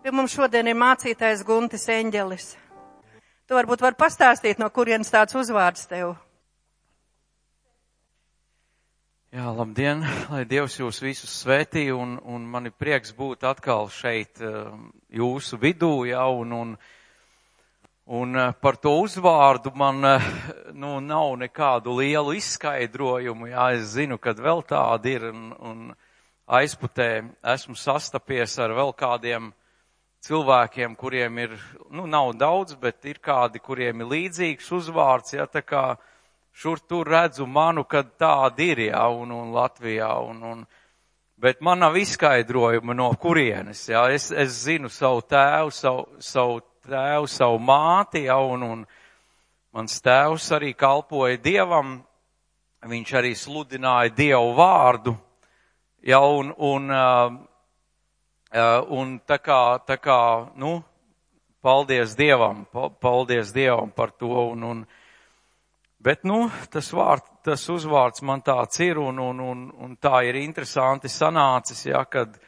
Pie mums šodien ir mācītājs Guntis Eņģelis. Tu varbūt vari pastāstīt, no kurienes tāds uzvārds tev? Jā, labdien, lai Dievs jūs visus svētī, un man ir prieks būt atkal šeit jūsu vidū, jā, un par to uzvārdu man, nav nekādu lielu izskaidrojumu, jā, es zinu, kad vēl tādi ir, un aizputē esmu sastapies ar vēl kādiem cilvēkiem, kuriem ir, nav daudz, bet ir kādi, kuriem ir līdzīgs uzvārds, jā, tā kā šur tur redzu manu, kad tādi ir, jā, un Latvijā, bet man nav izskaidrojuma no kurienes, jā, es zinu savu tēvu, savu māti, jā, un mans tēvs arī kalpoja Dievam, viņš arī sludināja Dievu vārdu, jā, un tā kā, paldies Dievam par to, bet, tas uzvārds man tāds ir, un tā ir interesanti sanācis, ja, kad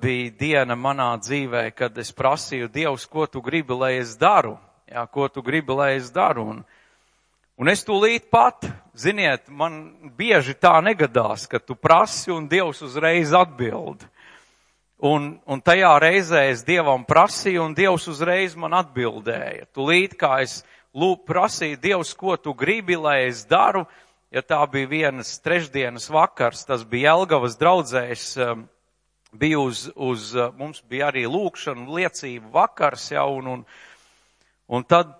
bija diena manā dzīvē, kad es prasīju Dievs, ko tu gribi, lai es daru, ja, un es tūlīt pat, ziniet, man bieži tā negadās, ka tu prasi un Dievs uzreiz atbild. Un tajā reizē es Dievam prasīju, un Dievs uzreiz man atbildēja. Tūlīt, kā es prasīju Dievs, ko tu gribi, lai es daru, ja tā bija vienas trešdienas vakars, tas bija Jelgavas draudzēs, bija mums bija arī lūkšana, liecību vakars, ja, un tad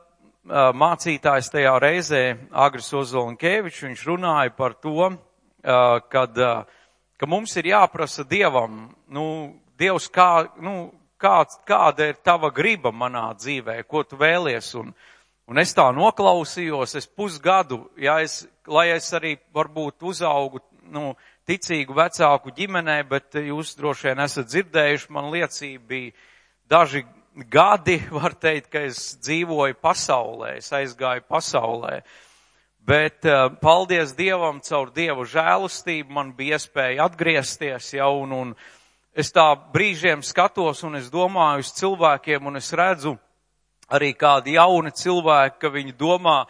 mācītājs tajā reizē, Agris Ozolinkevičs, viņš runāja par to, ka mums ir jāprasa Dievam, Dievs, kāda ir tava griba manā dzīvē, ko tu vēlies, un es tā noklausījos, es pusgadu, ja lai es arī varbūt uzaugu, ticīgu vecāku ģimenē, bet jūs droši vien esat dzirdējuši, man liecība bija daži gadi, var teikt, ka es dzīvoju pasaulē, es aizgāju pasaulē. Bet paldies Dievam, caur Dievu žēlastību man bija iespēja atgriezties, ja, un es tā brīžiem skatos, un es domāju uz cilvēkiem, un es redzu arī kādi jauni cilvēki, ka viņi domā,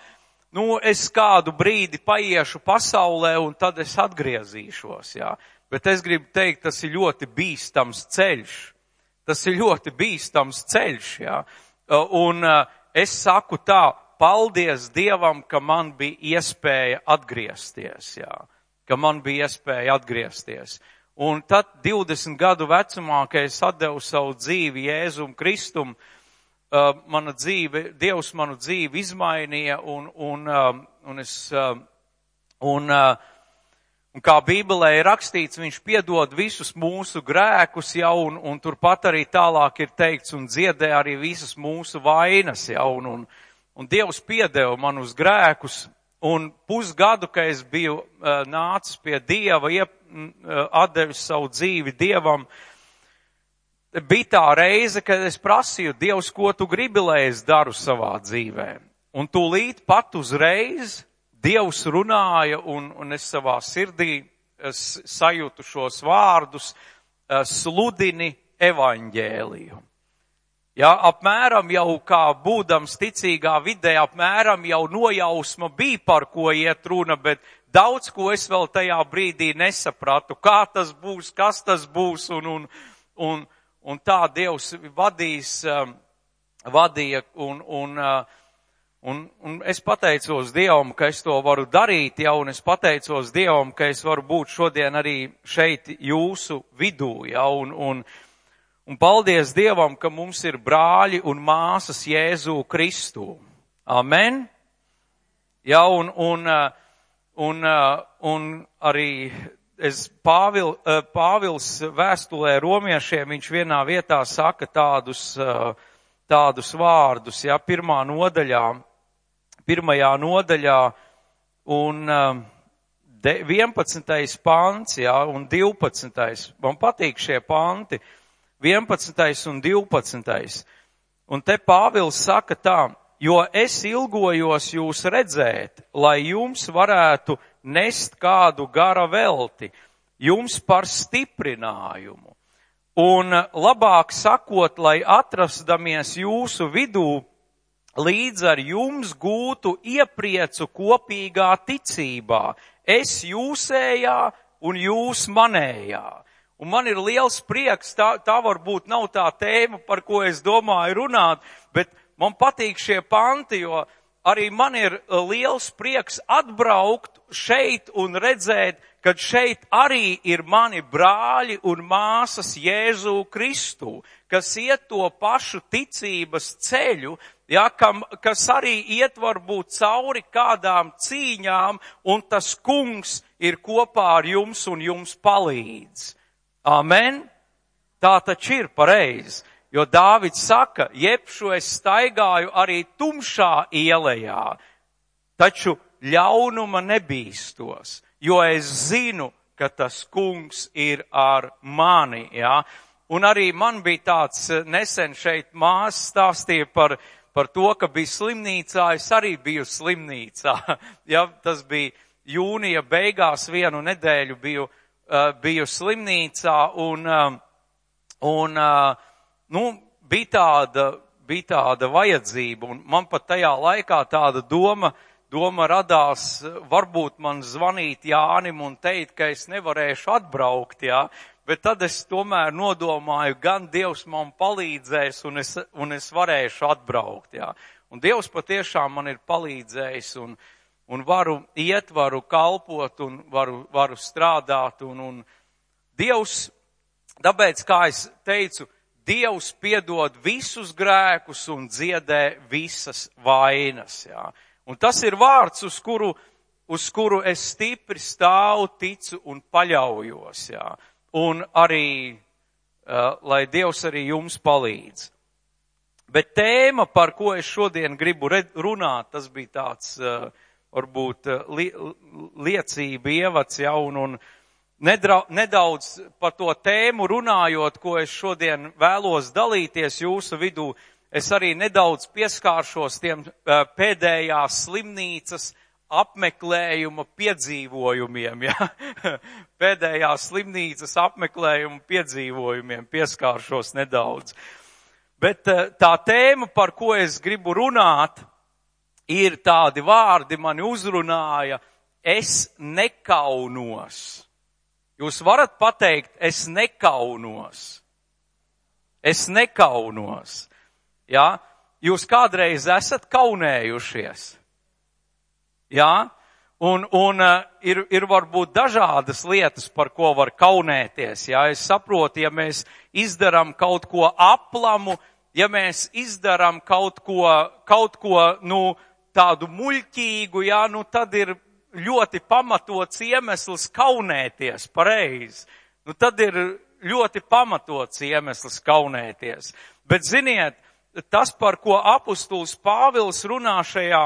es kādu brīdi paiešu pasaulē, un tad es atgriezīšos, jā. Bet es gribu teikt, tas ir ļoti bīstams ceļš. Jā. Un es saku tā, paldies Dievam, ka man bija iespēja atgriezties, Un tad 20 gadu vecumā, kad es atdevu savu dzīvi Jēzum Kristum, Dievs manu dzīvi izmainīja, un kā Bībelē ir rakstīts, viņš piedod visus mūsu grēkus, ja, un turpat arī tālāk ir teikts, un dziedē arī visas mūsu vainas, ja, un Dievs piedeva manus grēkus, un pusgadu, kad es biju nācis pie Dieva, atdevis savu dzīvi Dievam, bija tā reize, kad es prasīju, Dievs, ko tu gribi, lai es daru savā dzīvē. Un tūlīt pat uzreiz Dievs runāja, un es savā sirdī sajūtu šos vārdus, sludini evaņģēliju. Ja, apmēram jau kā būdams ticīgā vidē, apmēram jau nojausma bija, par ko iet runa, bet daudz ko es vēl tajā brīdī nesapratu, kā tas būs, kas tas būs, un tā Dievs vadīja, un es pateicos Dievam, ka es to varu darīt, ja, un es pateicos Dievam, ka es varu būt šodien arī šeit jūsu vidū, ja, un paldies Dievam, ka mums ir brāļi un māsas Jēzu Kristu. Amen. Ja, un arī Pāvils vēstulē romiešiem, viņš vienā vietā saka tādus vārdus, ja, pirmajā nodaļā, un 11. pants, ja, un 12. Man patīk šie panti. 11. un 12. Un te Pāvils saka tā, jo es ilgojos jūs redzēt, lai jums varētu nest kādu gara velti, jums par stiprinājumu. Un labāk sakot, lai atrasdamies jūsu vidū, līdz ar jums gūtu iepriecu kopīgā ticībā. Es jūsējā un jūs manējā. Un man ir liels prieks, tā varbūt nav tā tēma, par ko es domāju runāt, bet man patīk šie panti, jo arī man ir liels prieks atbraukt šeit un redzēt, kad šeit arī ir mani brāļi un māsas Jēzu Kristu, kas iet to pašu ticības ceļu, ja, kas arī iet varbūt cauri kādām cīņām, un tas kungs ir kopā ar jums un jums palīdz. Amen? Tā taču ir pareizi, jo Dāvids saka, jebšu es staigāju arī tumšā ielejā, taču ļaunuma nebīstos, jo es zinu, ka tas kungs ir ar mani, ja. Un arī man bija tāds nesen šeit māsa stāstīja par to, ka bija slimnīcā, es arī biju slimnīcā, ja, tas bija jūnija beigās, vienu nedēļu biju slimnīcā un bija tāda vajadzība, un man pat tajā laikā tāda doma radās, varbūt man zvanīt Jānim un teikt, ka es nevarēšu atbraukt, jā, bet tad es tomēr nodomāju, gan Dievs man palīdzēs un es varēšu atbraukt, jā. Un Dievs patiešām man ir palīdzējis un varu iet, varu kalpot un varu strādāt un Dievs, tāpēc, kā es teicu, Dievs piedod visus grēkus un dziedē visas vainas, jā. Un tas ir vārds, uz kuru es stipri stāvu, ticu un paļaujos, jā. Un arī, lai Dievs arī jums palīdz. Bet tēma, par ko es šodien gribu runāt, tas bija tāds, varbūt, liecība ievads, ja, un nedaudz par to tēmu runājot, ko es šodien vēlos dalīties jūsu vidū, es arī nedaudz pieskāršos tiem pēdējās slimnīcas apmeklējuma piedzīvojumiem, ja? Pēdējās slimnīcas apmeklējuma piedzīvojumiem pieskāršos nedaudz. Bet tā tēma, par ko es gribu runāt, ir tādi vārdi, mani uzrunāja, es nekaunos. Jūs varat pateikt, es nekaunos. Es nekaunos. Ja? Jūs kādreiz esat kaunējušies. Ja? Un ir varbūt dažādas lietas, par ko var kaunēties. Ja? Es saprotu, ja mēs izdaram kaut ko aplamu, ja mēs izdaram kaut ko tādu muļķīgu, ja? Tad ir ļoti pamatots iemesls kaunēties, pareizi. Tad ir ļoti pamatots iemesls kaunēties. Bet ziniet, tas, par ko apustulis Pāvils runā šajā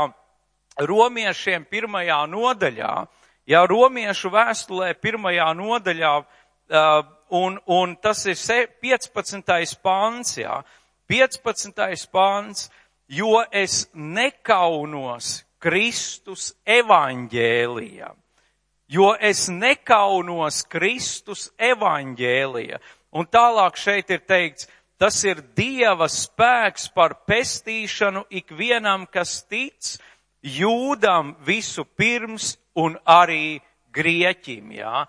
Romiešiem 1. nodaļā, ja Romiešu vēstulē 1. nodaļā, un tas ir 15. pants, ja, 15. pants, jo es nekaunos Kristus evaņģēlija. Jo es nekaunos Kristus evaņģēlija. Un tālāk šeit ir teikts, tas ir Dieva spēks par pestīšanu ikvienam, kas tic, jūdam visu pirms un arī grieķim, jā.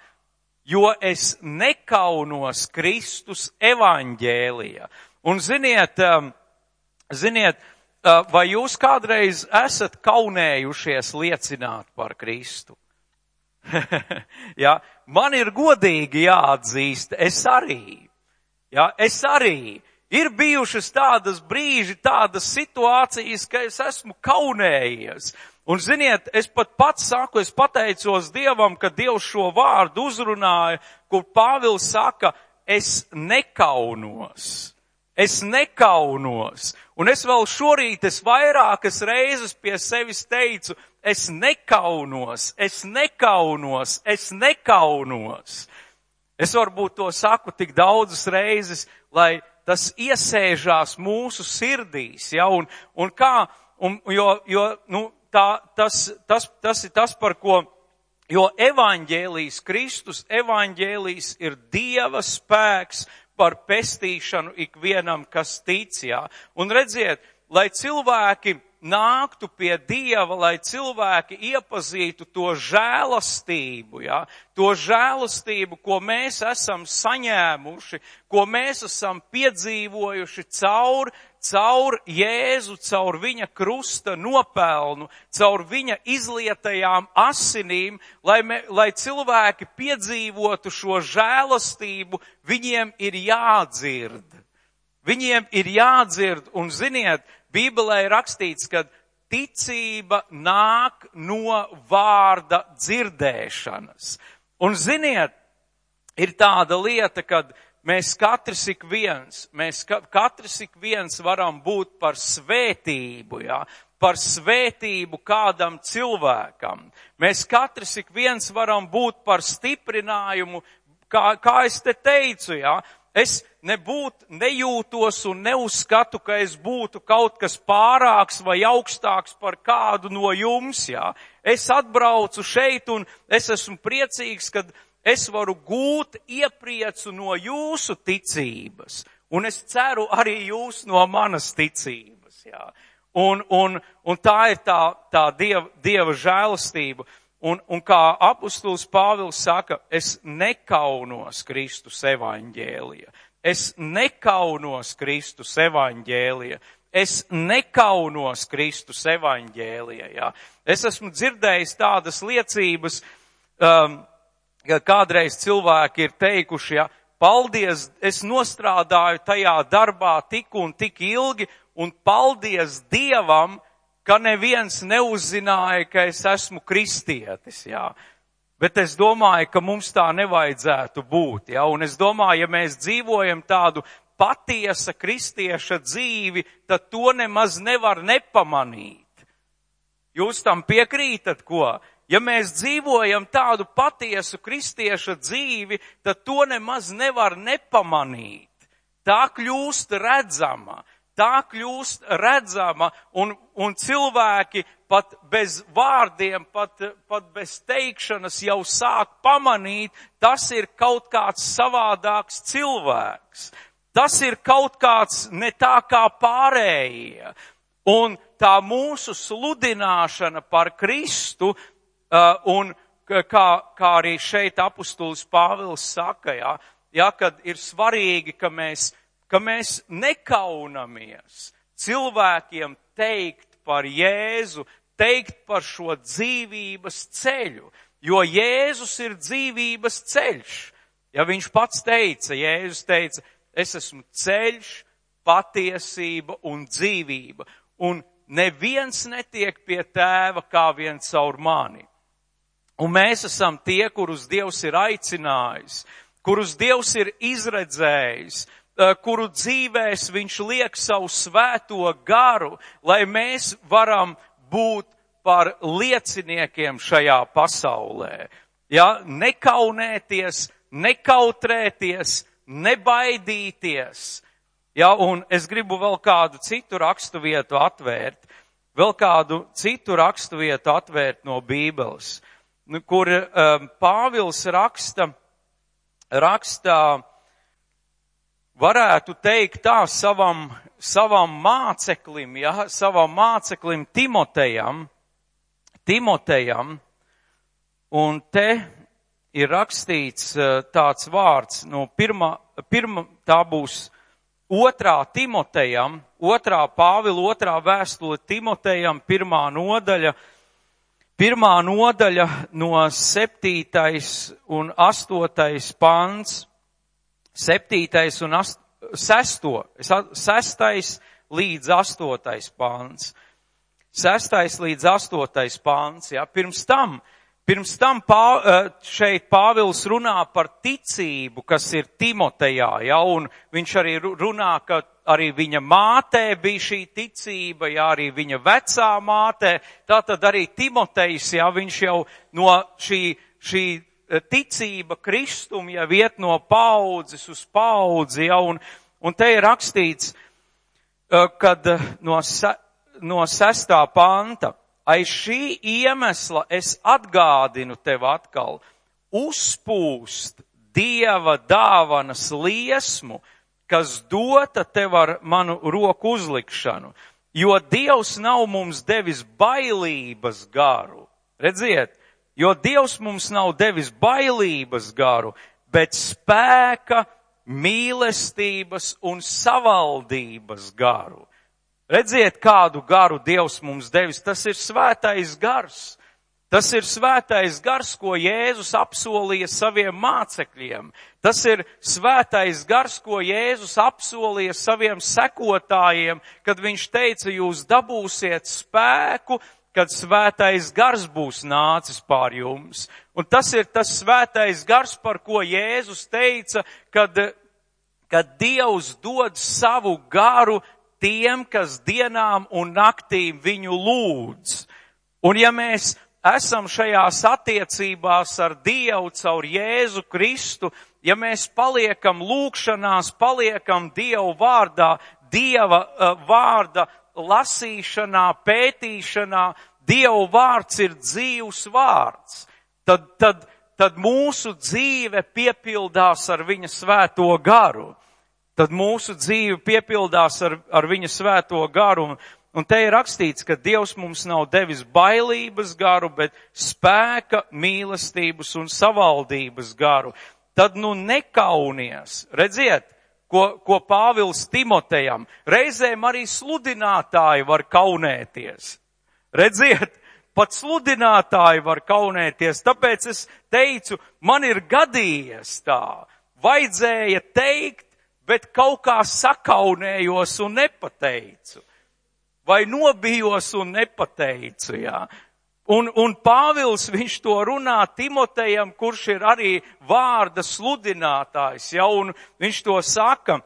Jo es nekaunos Kristus evaņģēlija. Un ziniet, vai jūs kādreiz esat kaunējušies liecināt par Kristu? Ja, man ir godīgi jāatzīst, es arī. Ir bijušas tādas brīži, tādas situācijas, ka es esmu kaunējies. Un ziniet, es pat pats saku, es pateicos Dievam, ka Dievs šo vārdu uzrunāja, kur Pāvils saka, es nekaunos. Es nekaunos. Un es vēl šorīt, es vairākas reizes pie sevis teicu, es nekaunos, es nekaunos, es nekaunos. Es varbūt to saku tik daudzas reizes, lai tas iesēžās mūsu sirdīs, ja, tas ir tas, par ko, jo evaņģēlijs, Kristus evaņģēlijs ir Dieva spēks par pestīšanu ikvienam, kas tic, jā. Un redziet, lai cilvēki nāktu pie Dieva, lai cilvēki iepazītu to žēlastību, ja? To žēlastību, ko mēs esam saņēmuši, ko mēs esam piedzīvojuši caur Jēzu, caur viņa krusta nopelnu, caur viņa izlietajām asinīm, lai cilvēki piedzīvotu šo žēlastību, viņiem ir jādzird. Viņiem ir jādzird, un ziniet, Bībelē ir rakstīts, ka ticība nāk no vārda dzirdēšanas. Un ziniet, ir tāda lieta, kad mēs katrs ik viens varam būt par svētību, ja? Par svētību kādam cilvēkam. Mēs katrs ik viens varam būt par stiprinājumu, kā es te teicu, ja? Es nejūtos un neuzskatu, ka es būtu kaut kas pārāks vai augstāks par kādu no jums, jā. Es atbraucu šeit un es esmu priecīgs, kad es varu gūt iepriecu no jūsu ticības. Un es ceru arī jūs no manas ticības, jā. Un tā ir tā Dieva žēlastība. Un kā apustulis Pāvils saka, es nekaunos Kristus evaņģēlija. Es nekaunos Kristus evaņģēlija. Es nekaunos Kristus evaņģēlija. Ja? Es esmu dzirdējis tādas liecības, ka kādreiz cilvēki ir teikuši, ja, paldies, es nostrādāju tajā darbā tik un tik ilgi, un paldies Dievam, ka neviens neuzzināja, ka es esmu kristietis, jā. Bet es domāju, ka mums tā nevajadzētu būt, jā. Un es domāju, ja mēs dzīvojam tādu patiesa kristieša dzīvi, tad to nemaz nevar nepamanīt. Jūs tam piekrītat, ko? Ja mēs dzīvojam tādu patiesu kristieša dzīvi, tad to nemaz nevar nepamanīt. Tā kļūst redzama. Tā kļūst redzama un cilvēki pat bez vārdiem, pat bez teikšanas jau sāk pamanīt, tas ir kaut kāds savādāks cilvēks. Tas ir kaut kāds ne tā kā pārējie. Un tā mūsu sludināšana par Kristu, un kā arī šeit apustulis Pāvils saka, kad ir svarīgi, ka mēs nekaunamies cilvēkiem teikt par Jēzu, teikt par šo dzīvības ceļu, jo Jēzus ir dzīvības ceļš. Ja viņš pats teica, Jēzus teica, es esmu ceļš, patiesība un dzīvība, un neviens netiek pie tēva kā vien caur mani. Un mēs esam tie, kurus Dievs ir aicinājis, kurus Dievs ir izredzējis, kuru dzīvēs viņš liek savu svēto garu, lai mēs varam būt par lieciniekiem šajā pasaulē. Ja, nekaunēties, nekautrēties, nebaidīties. Ja, un es gribu vēl kādu citu raksturvietu atvērt, no Bībeles, kur Pāvils raksta, varētu teikt tā savam māceklim Timotejam, un te ir rakstīts tāds vārds, tā būs 2. Timotejam, 2. Pāvila 2. vēstule Timotejam, 1. nodaļa no 7. un 8. pants. 7. un 6. līdz 8. pāns. 6. līdz 8. pāns. Ja. Pirms tam šeit Pāvils runā par ticību, kas ir Timotejā, ja, un viņš arī runā, ka arī viņa mātē bija šī ticība, ja, arī viņa vecā mātē, tātad arī Timotejs, ja, viņš jau no šī ticība Kristum jau iet no paudzes uz paudzi, ja, un te ir rakstīts, kad no 6. panta, aiz šī iemesla es atgādinu tev atkal, uzpūst Dieva dāvanas liesmu, kas dota tev ar manu roku uzlikšanu, jo Dievs nav mums devis bailības garu. Redziet, jo Dievs mums nav devis bailības garu, bet spēka, mīlestības un savaldības garu. Redziet, kādu garu Dievs mums devis, tas ir svētais gars. Tas ir svētais gars, ko Jēzus apsolīja saviem mācekļiem. Tas ir svētais gars, ko Jēzus apsolīja saviem sekotājiem, kad viņš teica, jūs dabūsiet spēku, kad svētais gars būs nācis pār jums. Un tas ir tas svētais gars, par ko Jēzus teica, kad Dievs dod savu garu tiem, kas dienām un naktīm viņu lūdz. Un ja mēs esam šajās attiecībās ar Dievu caur Jēzu Kristu, ja mēs paliekam lūgšanās, paliekam Dievu vārdā, Dieva vārda lasīšanā, pētīšanā, Dievu vārds ir dzīvs vārds, tad mūsu dzīve piepildās ar viņa svēto garu. Tad mūsu dzīve piepildās ar viņa svēto garu. Un te ir rakstīts, ka Dievs mums nav devis bailības garu, bet spēka, mīlestības un savaldības garu. Tad nekaunies. Redziet, ko Pāvils Timotejam. Reizēm arī sludinātāji var kaunēties. Redziet, pat sludinātāji var kaunēties. Tāpēc es teicu, man ir gadījies tā. Vajadzēja teikt, bet kaut kā sakaunējos un nepateicu. Vai nobijos un nepateicu, jā. Un Pāvils, viņš to runā Timotejam, kurš ir arī vārda sludinātājs, ja, un viņš to saka,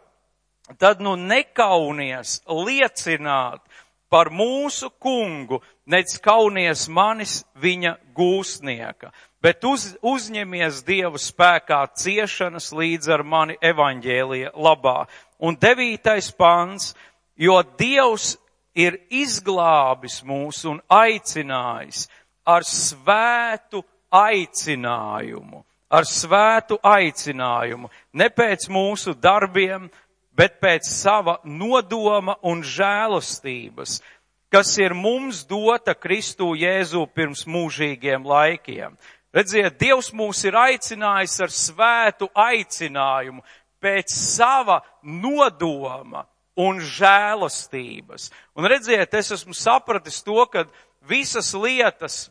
tad nekaunies liecināt par mūsu kungu, nec kaunies manis viņa gūstnieka, bet uzņemies Dievu spēkā ciešanas līdz ar mani evaņģēlija labā. Un 9. pants, jo Dievs ir izglābis mūs un aicinājis ar svētu aicinājumu. Ar svētu aicinājumu. Ne pēc mūsu darbiem, bet pēc sava nodoma un žēlastības, kas ir mums dota Kristu Jēzu pirms mūžīgiem laikiem. Redziet, Dievs mūs ir aicinājis ar svētu aicinājumu pēc sava nodoma un žēlastības. Un redziet, es esmu sapratis to, ka visas lietas,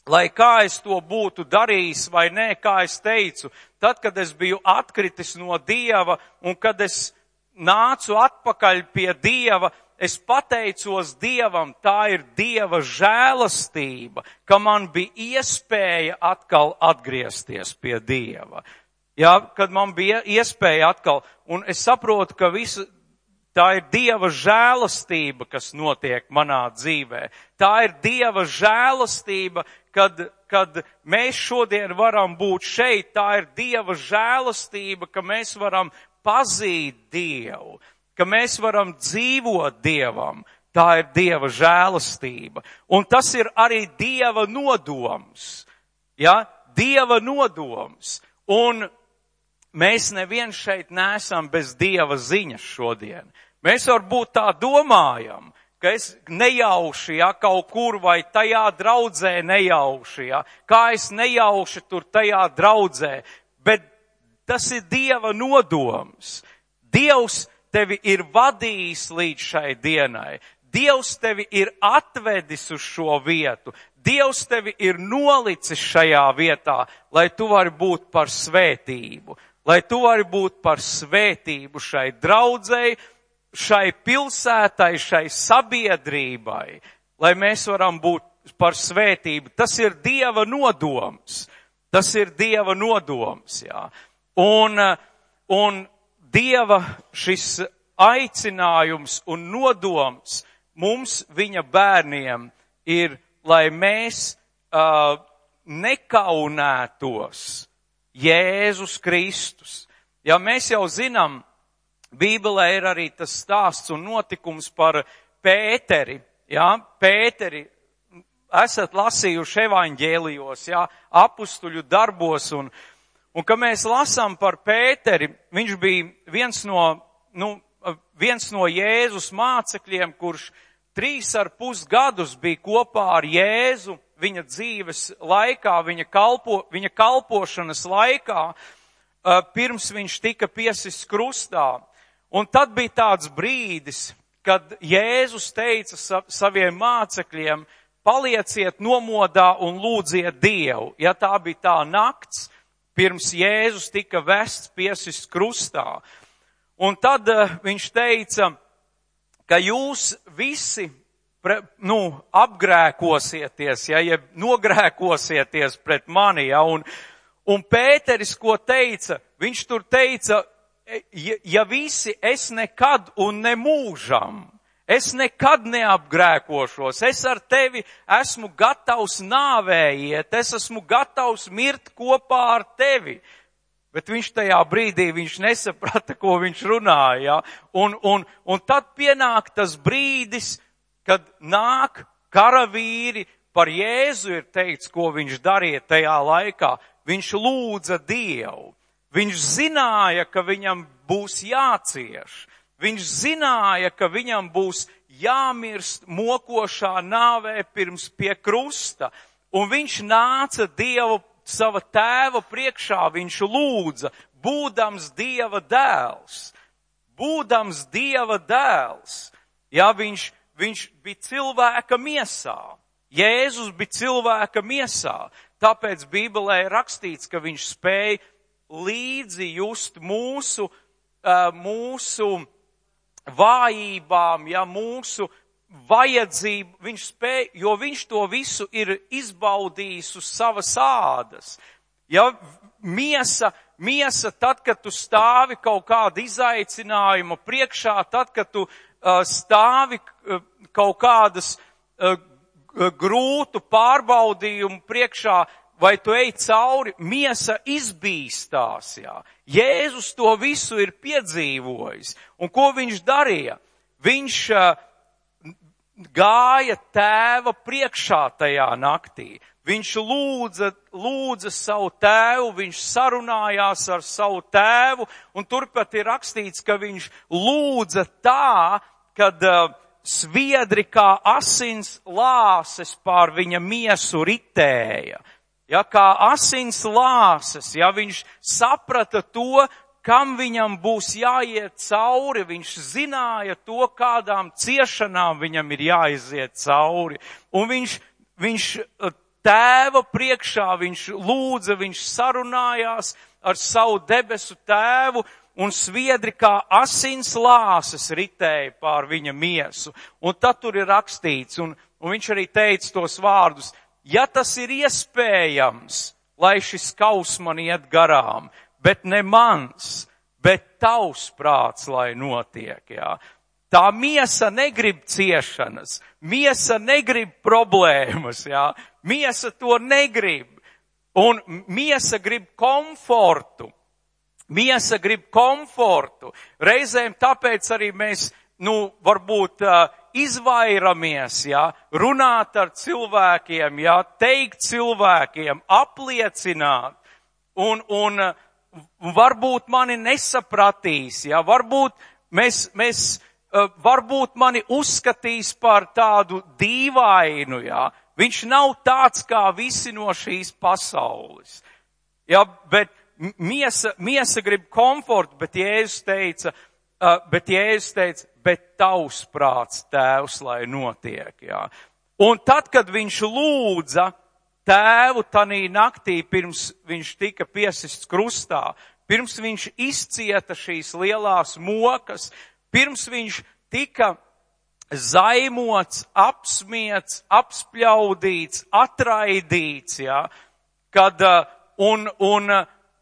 lai kā es to būtu darījis vai nē, kā es teicu, tad, kad es biju atkritis no Dieva un kad es nācu atpakaļ pie Dieva, es pateicos Dievam, tā ir Dieva žēlastība, ka man bija iespēja atkal atgriezties pie Dieva. Jā, kad man bija iespēja atkal, un es saprotu, ka tā ir Dieva žēlastība, kas notiek manā dzīvē. Tā ir Dieva žēlastība, kad mēs šodien varam būt šeit. Tā ir Dieva žēlastība, ka mēs varam pazīt Dievu, ka mēs varam dzīvot Dievam. Tā ir Dieva žēlastība. Un tas ir arī Dieva nodoms. Ja? Dieva nodoms. Un mēs neviens šeit neesam bez Dieva ziņas šodien. Mēs varbūt tā domājam, ka es nejauši, ja, kaut kur vai tajā draudzē nejauši, ja, kā es nejauši tur tajā draudzē, bet tas ir Dieva nodoms. Dievs tevi ir vadījis līdz šai dienai. Dievs tevi ir atvedis uz šo vietu. Dievs tevi ir nolicis šajā vietā, lai tu vari būt par svētību. Lai tu vari būt par svētību šai draudzei, šai pilsētai, šai sabiedrībai, lai mēs varam būt par svētību. Tas ir Dieva nodoms. Tas ir Dieva nodoms, jā. Un Dieva šis aicinājums un nodoms mums, viņa bērniem, ir, lai mēs nekaunētos Jēzus Kristus. Ja mēs jau zinām, Bībelē ir arī tas stāsts un notikums par Pēteri. Ja? Pēteri, esat lasījuši evaņģēlijos, ja? Apustuļu darbos, Un, kad mēs lasām par Pēteri, viņš bija viens no Jēzus mācekļiem, kurš 3,5 gadus bija kopā ar Jēzu viņa dzīves laikā, viņa kalpošanas laikā, pirms viņš tika piesists krustā. Un tad bija tāds brīdis, kad Jēzus teica saviem mācekļiem, palieciet nomodā un lūdziet Dievu. Ja tā bija tā nakts, pirms Jēzus tika vests piesists krustā. Un tad viņš teica, ka jūs visi apgrēkosieties, ja nogrēkosieties pret mani, ja, un Pēteris, ko teica, viņš tur teica, ja visi es nekad un nemūžam, es nekad neapgrēkošos, es ar tevi esmu gatavs nāvējiet, es esmu gatavs mirt kopā ar tevi. Bet viņš tajā brīdī, viņš nesaprata, ko viņš runāja. Un tad pienāk tas brīdis, kad nāk karavīri, par Jēzu ir teikts, ko viņš darīja tajā laikā. Viņš lūdza Dievu. Viņš zināja, ka viņam būs jācieš. Viņš zināja, ka viņam būs jāmirst mokošā nāvē pirms pie krusta. Un viņš nāca Dievu sava tēva priekšā, viņš lūdza, būdams Dieva dēls. Būdams Dieva dēls. Ja, viņš bija cilvēka miesā. Jēzus bija cilvēka miesā. Tāpēc Bībelē ir rakstīts, ka viņš spēja līdzi just mūsu vājībām, ja, mūsu vajadzību, viņš spēja, jo viņš to visu ir izbaudījis uz savas ādas. Ja, miesa, tad, kad tu stāvi kaut kāda izaicinājuma priekšā, tad, kad tu stāvi kaut kādas grūtu pārbaudījumu priekšā, vai tu ej cauri, miesa izbīstās, jā. Jēzus to visu ir piedzīvojis. Un ko viņš darīja? Viņš gāja tēva priekšā tajā naktī. Viņš lūdza savu tēvu, viņš sarunājās ar savu tēvu, un turpat ir rakstīts, ka viņš lūdza tā, kad sviedri kā asins lāses pār viņa miesu ritēja. Ja, kā asins lāses, ja viņš saprata to, kam viņam būs jāiet cauri, viņš zināja to, kādām ciešanām viņam ir jāiziet cauri. Un viņš tēva priekšā, viņš lūdza, viņš sarunājās ar savu debesu tēvu, un sviedri kā asins lāses ritēja pār viņa miesu. Un tad tur ir rakstīts, un viņš arī teica tos vārdus, ja tas ir iespējams, lai šis kaus man iet garām, bet ne mans, bet tavs prāts, lai notiek, jā. Tā miesa negrib ciešanas, miesa negrib problēmas, jā. Miesa to negrib, un miesa grib komfortu. Miesa grib komfortu. Reizēm tāpēc arī mēs, varbūt izvairamies, jā, runāt ar cilvēkiem, jā, teikt cilvēkiem, apliecināt, un varbūt mani nesapratīs, jā, varbūt mani uzskatīs par tādu dīvainu, jā. Viņš nav tāds kā visi no šīs pasaules. Jā, bet miesa grib komfortu, bet Jēzus teica, bet tavs prāts, tēvs, lai notiek, jā. Un tad, kad viņš lūdza tēvu tanī naktī, pirms viņš tika piesists krustā, pirms viņš izcieta šīs lielās mokas, pirms viņš tika zaimots, apsmiets, apspļaudīts, atraidīts, jā, kad, un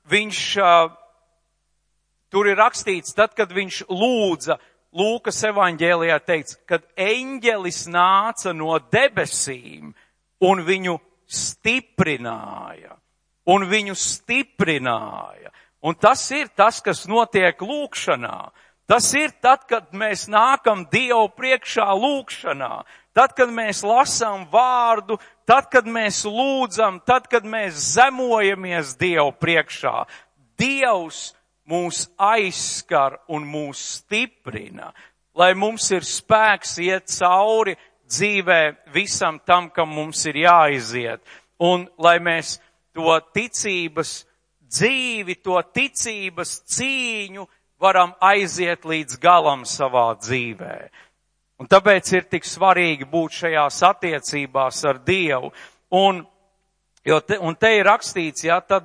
viņš, tur ir rakstīts, tad, kad viņš lūdza, Lūkas evaņģēlijā teikts, kad eņģelis nāca no debesīm un viņu stiprināja. Un tas ir tas, kas notiek lūkšanā. Tas ir tad, kad mēs nākam Dievu priekšā lūkšanā. Tad, kad mēs lasām vārdu, tad, kad mēs lūdzam, tad, kad mēs zemojamies Dievu priekšā, Dievs mūs aizskar un mūs stiprina, lai mums ir spēks iet cauri dzīvē visam tam, kam mums ir jāiziet. Un lai mēs to ticības dzīvi, to ticības cīņu varam aiziet līdz galam savā dzīvē. Un tāpēc ir tik svarīgi būt šajās attiecībās ar Dievu. Un te ir rakstīts, tad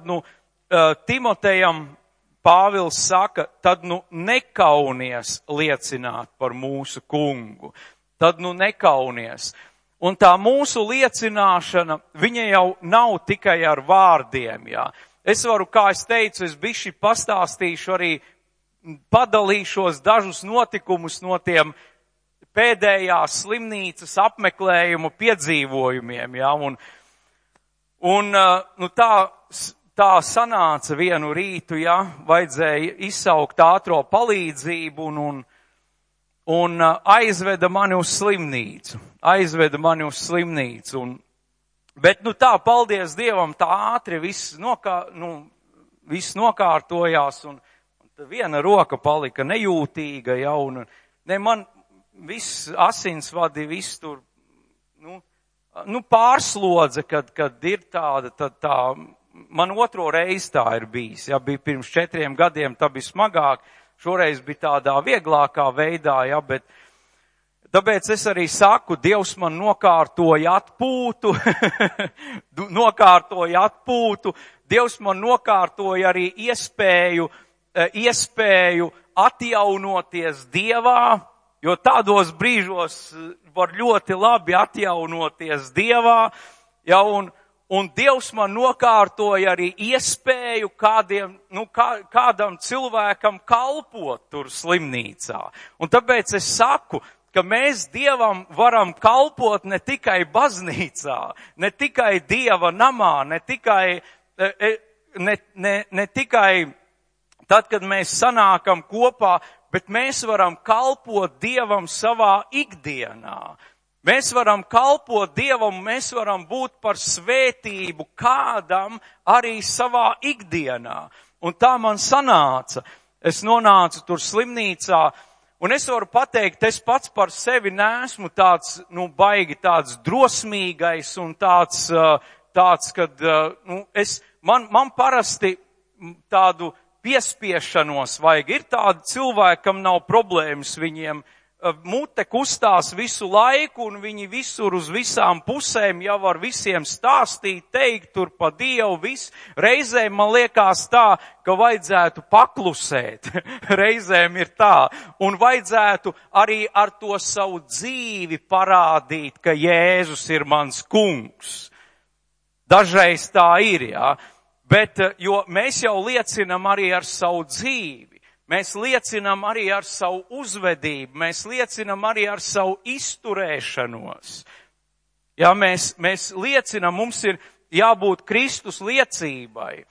Timotejam Pāvils saka, tad nekaunies liecināt par mūsu kungu. Tad nekaunies. Un tā mūsu liecināšana, viņa jau nav tikai ar vārdiem, jā. Es varu, kā es teicu, es bišķi pastāstīšu arī, padalīšos dažus notikumus no tiem pēdējās slimnīcas apmeklējumu piedzīvojumiem, jā. Un tā sanāca vienu rītu, jā, vajadzēja izsaukt ātro palīdzību un aizveda mani uz slimnīcu. Bet tā, paldies Dievam, tā ātri viss nokārtojās un viena roka palika nejūtīga, jā, un man viss asinsvadi, viss tur, pārslodze, kad ir tāda, tad tā, man otro reizi tā ir bijis, jā, bija pirms 4 gadiem, tā bija smagāk, šoreiz bija tādā vieglākā veidā, jā, bet tāpēc es arī saku, Dievs man nokārtoja atpūtu, Dievs man nokārtoja arī iespēju atjaunoties Dievā, jo tādos brīžos var ļoti labi atjaunoties Dievā, jā, un Dievs man nokārtoja arī iespēju kādam cilvēkam kalpot tur slimnīcā. Un tāpēc es saku, ka mēs Dievam varam kalpot ne tikai baznīcā, ne tikai Dieva namā, ne tikai tad, kad mēs sanākam kopā, bet mēs varam kalpot Dievam savā ikdienā. Mēs varam kalpot Dievam, mēs varam būt par svētību kādam arī savā ikdienā. Un tā man sanāca. Es nonācu tur slimnīcā, un es varu pateikt, es pats par sevi neesmu tāds, baigi tāds drosmīgais un tāds, kad, man parasti tādu piespiešanos vajag. Ir tādi cilvēki, kam nav problēmas, viņiem mute kustās visu laiku un viņi visur uz visām pusēm jau var visiem stāstīt, teikt tur pa Dievu viss. Reizēm man liekas tā, ka vajadzētu paklusēt. Reizēm ir tā. Un vajadzētu arī ar to savu dzīvi parādīt, ka Jēzus ir mans kungs. Dažreiz tā ir, jā. Bet, jo mēs jau liecinam arī ar savu dzīvi. Mēs liecinam arī ar savu uzvedību, mēs liecinam arī ar savu izturēšanos. Jā, mēs liecinam, mums ir jābūt Kristus liecībai.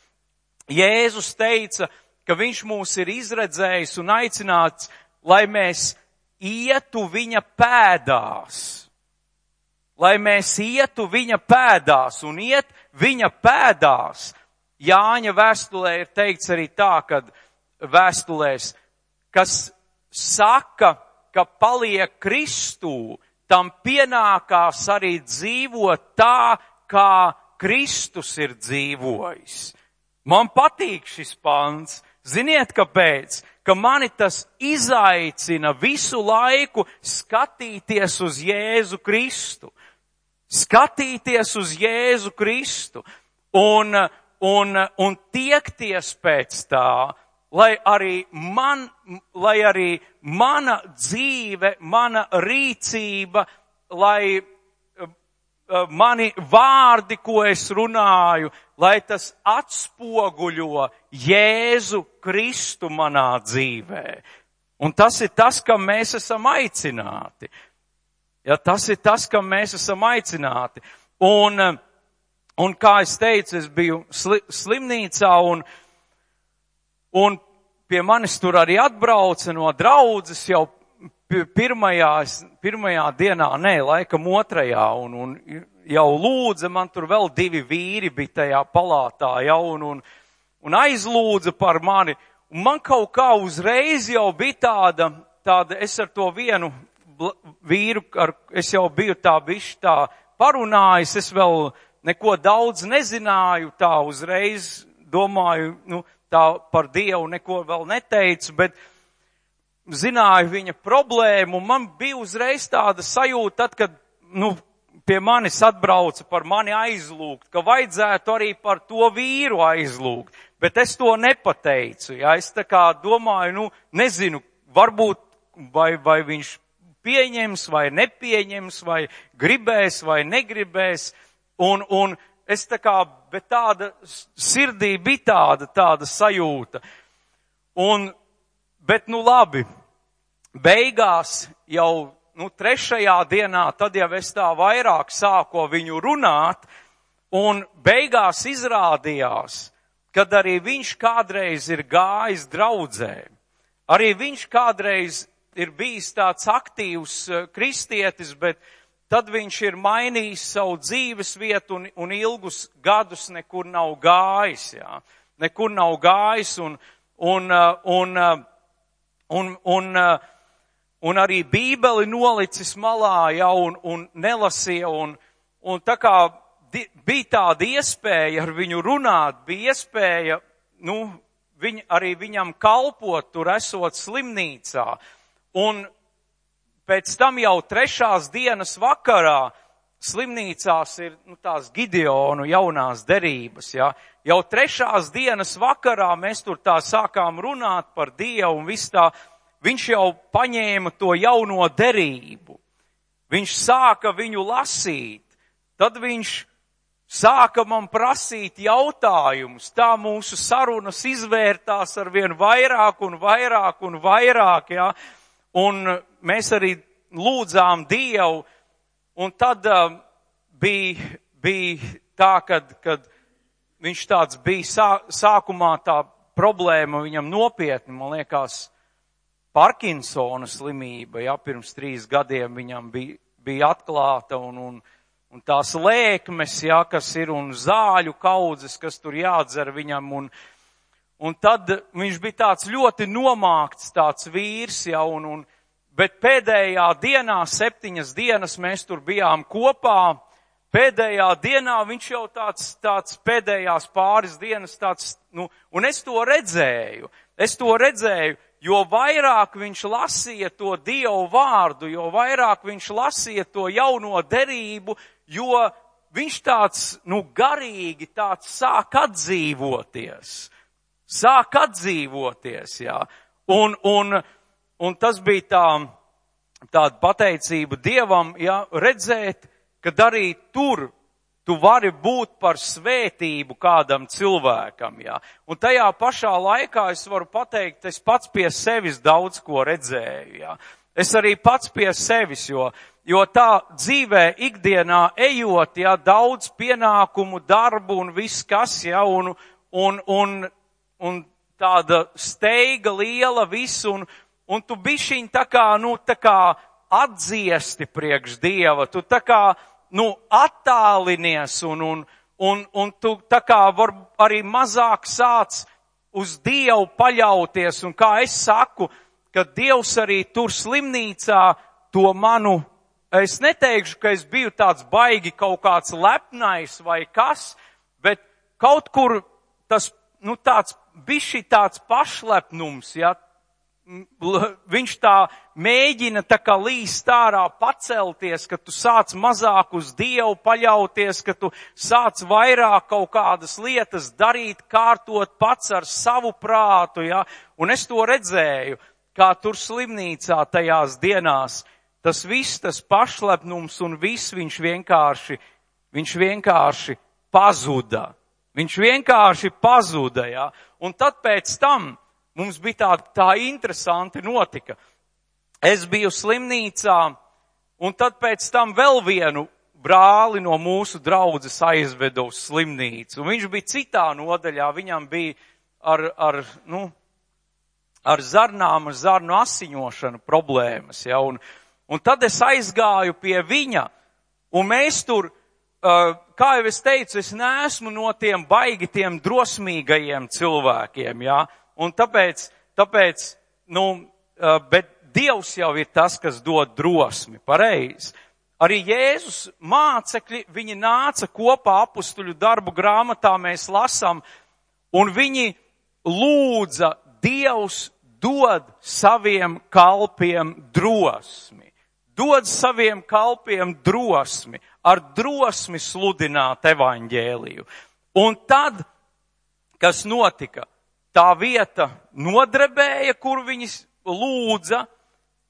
Jēzus teica, ka viņš mūs ir izredzējis un aicināts, lai mēs ietu viņa pēdās. Lai mēs ietu viņa pēdās un iet viņa pēdās. Jāņa vēstulē ir teikts arī tā, kad vēstulēs, kas saka, ka paliek Kristū, tam pienākās arī dzīvot tā, kā Kristus ir dzīvojis. Man patīk šis pants. Ziniet, kāpēc? Ka mani tas izaicina visu laiku skatīties uz Jēzu Kristu. Skatīties uz Jēzu Kristu un tiekties pēc tā, lai arī mana dzīve, mana rīcība, lai mani vārdi, ko es runāju, lai tas atspoguļo Jēzu Kristu manā dzīvē. Un tas ir tas, kam mēs esam aicināti. Ja, tas ir tas, kam mēs esam aicināti. Un kā es teicu, es biju slimnīcā un pie manis tur arī atbrauca no draudzes jau pirmajā dienā, laikam 2. Un jau lūdza, man tur vēl 2 vīri bija tajā palātā, ja, un aizlūdza par mani. Un man kaut kā uzreiz jau bija tāda, es ar to vienu vīru, es jau biju tā parunājis, es vēl neko daudz nezināju, tā uzreiz domāju, tā par Dievu neko vēl neteicu, bet zināju viņa problēmu, un man bija uzreiz tāda sajūta, tad, kad, pie manis atbrauca par mani aizlūgt, ka vajadzētu arī par to vīru aizlūgt, bet es to nepateicu, ja, es tā kā domāju, nezinu, varbūt, vai viņš pieņems, vai nepieņems, vai gribēs, vai negribēs, un es tā kā, bet tāda sirdī bija tāda sajūta, bet labi, beigās jau, 3. dienā, tad jau es tā vairāk sāku viņu runāt, un beigās izrādījās, kad arī viņš kādreiz ir gājis draudzē, arī viņš kādreiz ir bijis tāds aktīvs kristietis, bet tad viņš ir mainījis savu dzīves vietu un ilgus gadus nekur nav gājis, jā. Nekur nav gājis un arī Bībeli nolicis malā, jā, un nelasīja, un tā kā bija tāda iespēja ar viņu runāt, bija iespēja, arī viņam kalpot tur esot slimnīcā, un pēc tam jau 3. dienas vakarā slimnīcās ir tās Gideonu jaunās derības, ja. Jau 3. dienas vakarā mēs tur tā sākām runāt par Dievu un viss tā, viņš jau paņēma to jauno derību. Viņš sāka viņu lasīt, tad viņš sāka man prasīt jautājumus, tā mūsu sarunas izvērtās arvien vairāk un vairāk un vairāk, ja. Un mēs arī lūdzām Dievu, un tad bija tā, kad viņš tāds bija sākumā tā problēma viņam nopietni, man liekas, Parkinsona slimība, ja, pirms 3 gadiem viņam bija atklāta, un tās lēkmes, ja, kas ir, un zāļu kaudzes, kas tur jādzer viņam, un tad viņš bija tāds ļoti nomākts tāds vīrs, ja, bet pēdējā dienā, 7 dienas mēs tur bijām kopā, pēdējā dienā viņš jau tāds pēdējās pāris dienas tāds, un es to redzēju, jo vairāk viņš lasīja to Dievu vārdu, jo vairāk viņš lasīja to jauno derību, jo viņš tāds, garīgi tāds sāk atdzīvoties, jā. Un tas bija tāda pateicība Dievam, ja, redzēt, kad arī tur tu vari būt par svētību kādam cilvēkam, ja. Un tajā pašā laikā es varu pateikt, es pats pie sevis daudz ko redzēju, ja. Es arī pats pie sevis, jo tā dzīvē ikdienā ejot, ja, daudz pienākumu, darbu un viss kas, ja, un tāda steiga liela visu, un tu bišķiņ tā kā atdziesti priekš Dieva, tu tā kā, attālinies, un tu tā kā var arī mazāk sāc uz Dievu paļauties, un kā es saku, ka Dievs arī tur slimnīcā to manu, es neteikšu, ka es biju tāds baigi kaut kāds lepnais vai kas, bet kaut kur tas, tāds bišķi tāds pašlepnums, ja, viņš tā mēģina tā kā līst ārā pacelties, ka tu sāc mazāk uz Dievu paļauties, ka tu sāc vairāk kaut kādas lietas darīt, kārtot pats ar savu prātu, ja, un es to redzēju, kā tur slimnīcā tajās dienās, tas viss, tas pašlepnums un viss viņš vienkārši pazuda. Viņš vienkārši pazuda, ja, un tad pēc tam mums bija tā interesanti notika. Es biju slimnīcā, un tad pēc tam vēl vienu brāli no mūsu draudzes aizveda uz slimnīcu. Un viņš bija citā nodaļā, viņam bija ar zarnu asiņošanu problēmas. Ja, un tad es aizgāju pie viņa, un mēs tur kā jau es teicu, es neesmu no tiem baigi tiem drosmīgajiem cilvēkiem, jā, un tāpēc, bet Dievs jau ir tas, kas dod drosmi, pareizi. Arī Jēzus mācekļi, viņi nāca kopā apustuļu darbu grāmatā, mēs lasām, un viņi lūdza, Dievs dod saviem kalpiem drosmi. Dod saviem kalpiem drosmi, ar drosmi sludināt evaņģēliju. Un tad, kas notika, tā vieta nodrebēja, kur viņi lūdza,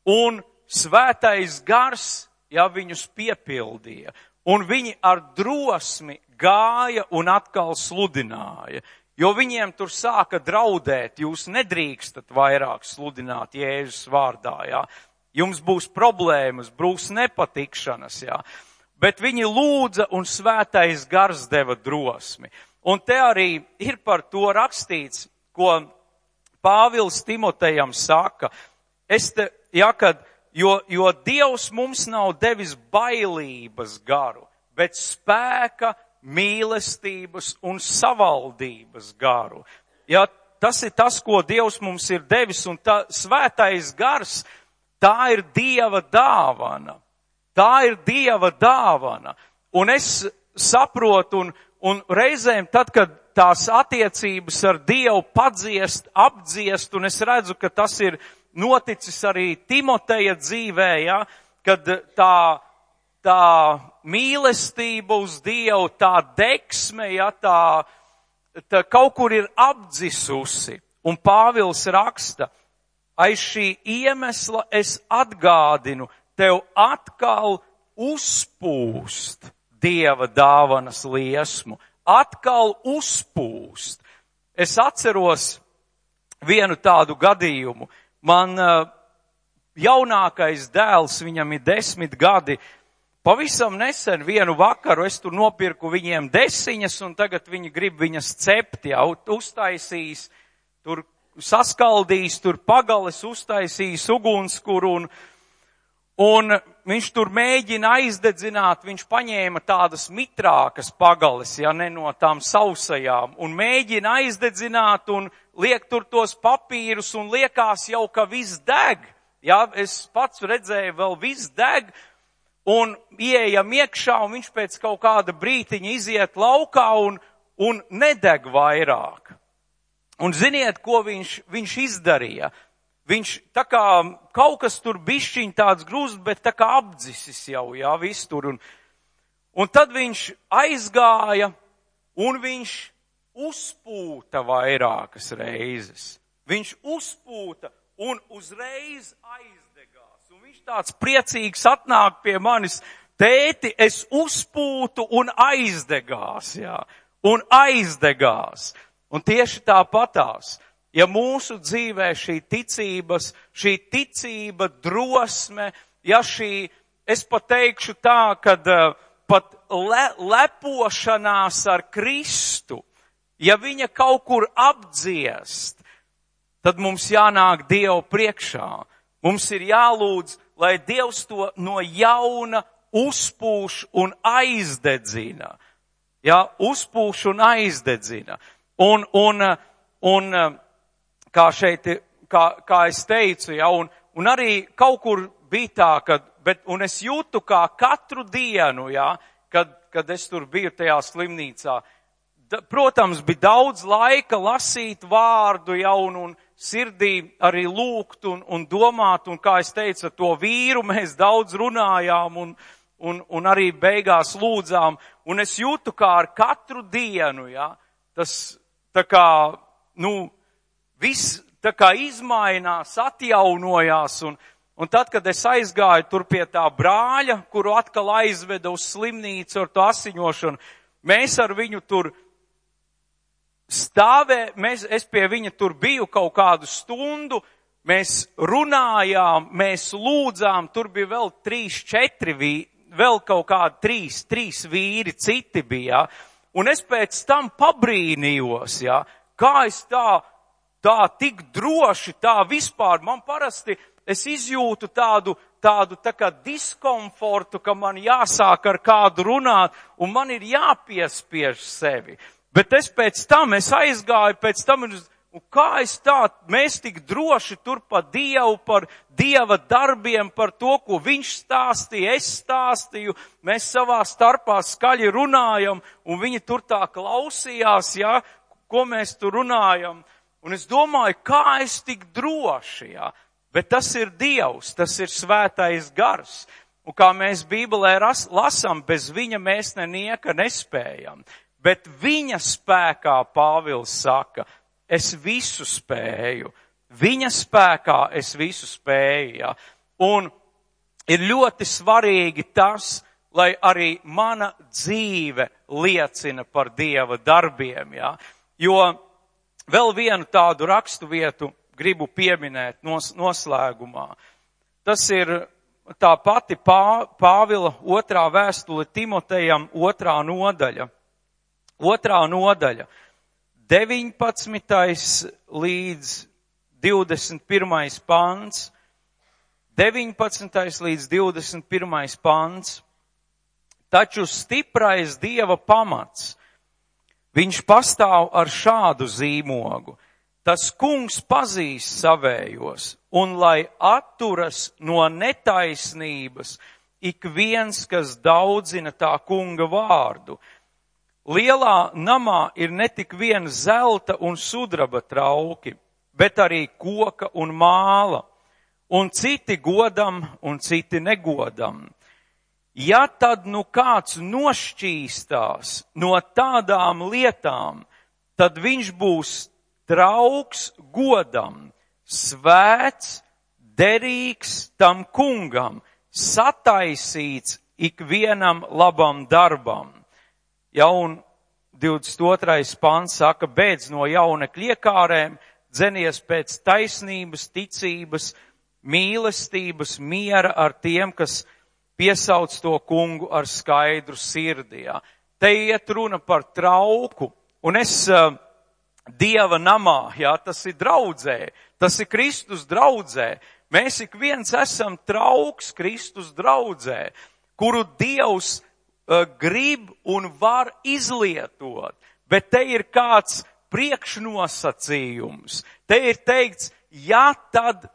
un svētais gars, ja viņus piepildīja, un viņi ar drosmi gāja un atkal sludināja, jo viņiem tur sāka draudēt, jūs nedrīkstat vairāk sludināt Jēzus vārdā, jā. Jums būs problēmas, būs nepatikšanas, jā. Bet viņi lūdza un svētais gars deva drosmi. Un te arī ir par to rakstīts, ko Pāvils Timotejam saka, jo Dievs mums nav devis bailības garu, bet spēka, mīlestības un savaldības garu. Ja, tas ir tas, ko Dievs mums ir devis, un tā svētais gars, tā ir Dieva dāvana. Tā ir Dieva dāvana. Un es saprotu, un reizēm tad, kad tās attiecības ar Dievu padziest, apdziest, un es redzu, ka tas ir noticis arī Timoteja dzīvē, ja, kad tā mīlestība uz Dievu, tā deksme, ja, tā kaut kur ir apdzisusi. Un Pāvils raksta, aiz šī iemesla es atgādinu, tev atkal uzpūst Dieva dāvanas liesmu. Atkal uzpūst. Es atceros vienu tādu gadījumu. Man jaunākais dēls, viņam ir 10 gadi, pavisam nesen vienu vakaru es tur nopirku viņiem desiņas, un tagad viņi grib viņas cept, jau uztaisīs, tur saskaldīs, tur pagales uztaisīs ugunskuru, un viņš tur mēģina aizdedzināt, viņš paņēma tādas mitrākas pagales, ja ne no tām sausajām, un mēģina aizdedzināt un liek tur tos papīrus un liekas jau, ka viss deg. Ja, es pats redzēju, vēl viss deg, un ieejam iekšā, un viņš pēc kaut kāda brītiņa iziet laukā un nedeg vairāk. Un ziniet, ko viņš izdarīja? Viņš tā kā kaut kas tur bišķiņ tāds grūst, bet tā kā apdzisis jau, jā, viss tur. Un tad viņš aizgāja un viņš uzpūta vairākas reizes. Viņš uzpūta un uzreiz aizdegās. Un viņš tāds priecīgs atnāk pie manis, tēti, es uzpūtu un aizdegās, jā. Un aizdegās. Un tieši tāpatās. Ja mūsu dzīvē šī ticība, drosme, ja šī, es pat teikšu tā, kad pat lepošanās ar Kristu, ja viņa kaut kur apdziest, tad mums jānāk Dievu priekšā. Mums ir jālūdz, lai Dievs to no jauna uzpūš un aizdedzina. Ja, uzpūš un aizdedzina. Un kā šeit, kā es teicu, ja, un arī kaut kur bija tā, un es jūtu kā katru dienu, ja, kad es tur biju tajā slimnīcā, protams, bija daudz laika lasīt vārdu, ja, un sirdī arī lūgt un domāt, un kā es teicu, to vīru mēs daudz runājām un arī beigās lūdzām, un es jūtu kā ar katru dienu, ja, tas tā kā, viss tā kā izmainās, atjaunojās, un tad, kad es aizgāju tur pie tā brāļa, kuru atkal aizveda uz slimnīcu ar to asiņošanu, mēs ar viņu tur es pie viņa tur biju kaut kādu stundu, mēs runājām, mēs lūdzām, tur bija vēl 3-4 vēl kaut kādi 3 vīri, citi bija, un es pēc tam pabrīnījos, ja, kā es tā tik droši, tā vispār, man parasti, es izjūtu tādu tā kā diskomfortu, ka man jāsāk ar kādu runāt, un man ir jāpiespiež sevi. Bet es aizgāju pēc tam, un kā mēs tik droši tur par Dievu, par Dieva darbiem, par to, ko viņš stāstīja, es stāstīju, mēs savā starpā skaļi runājam, un viņi tur tā klausījās, ja, ko mēs tur runājam. Un es domāju, kā es tik droši, ja. Bet tas ir Dievs, tas ir svētais gars. Un kā mēs Bībelē lasām, bez viņa mēs nenieka nespējam. Bet viņa spēkā Pāvils saka, es visu spēju. Viņa spēkā es visu spēju. Ja? Un ir ļoti svarīgi tas, lai arī mana dzīve liecina par Dieva darbiem. Ja? Jo vēl vienu tādu raksturvietu gribu pieminēt noslēgumā. Tas ir tā pati Pāvila 2. vēstule Timotejam 2. nodaļa. 2. nodaļa, 19. līdz 21. pants, 19. līdz 21. pants. Taču stiprais Dieva pamats, viņš pastāv ar šādu zīmogu. Tas kungs pazīst savējos, un lai atturas no netaisnības ik viens, kas daudzina tā kunga vārdu. Lielā namā ir ne tik vien zelta un sudraba trauki, bet arī koka un māla, un citi godam un citi negodam. Ja tad nu kāds nošķīstās no tādām lietām, tad viņš būs draugs godam, svēts, derīgs tam kungam, sataisīts ikvienam labam darbam. Ja, un 22. pants saka, beidz no jaunekļa iekārēm, dzenies pēc taisnības, ticības, mīlestības, miera ar tiem, kas piesauc to kungu ar skaidru sirdi. Ja. Te iet runa par trauku, un es Dieva namā, ja, tas ir draudzē, tas ir Kristus draudzē. Mēs ik viens esam trauks Kristus draudzē, kuru Dievs grib un var izlietot, bet te ir kāds priekšnosacījums. Te ir teikts, ja tad,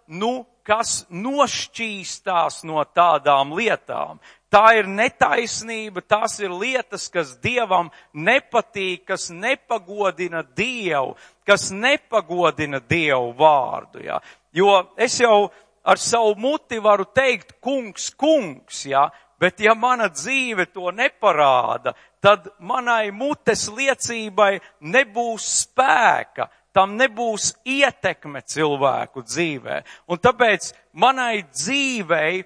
kas nošķīstās no tādām lietām. Tā ir netaisnība, tās ir lietas, kas Dievam nepatīk, kas nepagodina Dievu, kas nepagodina Dievu vārdu. Ja? Jo es jau ar savu muti varu teikt, kungs, kungs, ja? Bet ja mana dzīve to neparāda, tad manai mutes liecībai nebūs spēka, tam nebūs ietekme cilvēku dzīvē. Un tāpēc manai dzīvei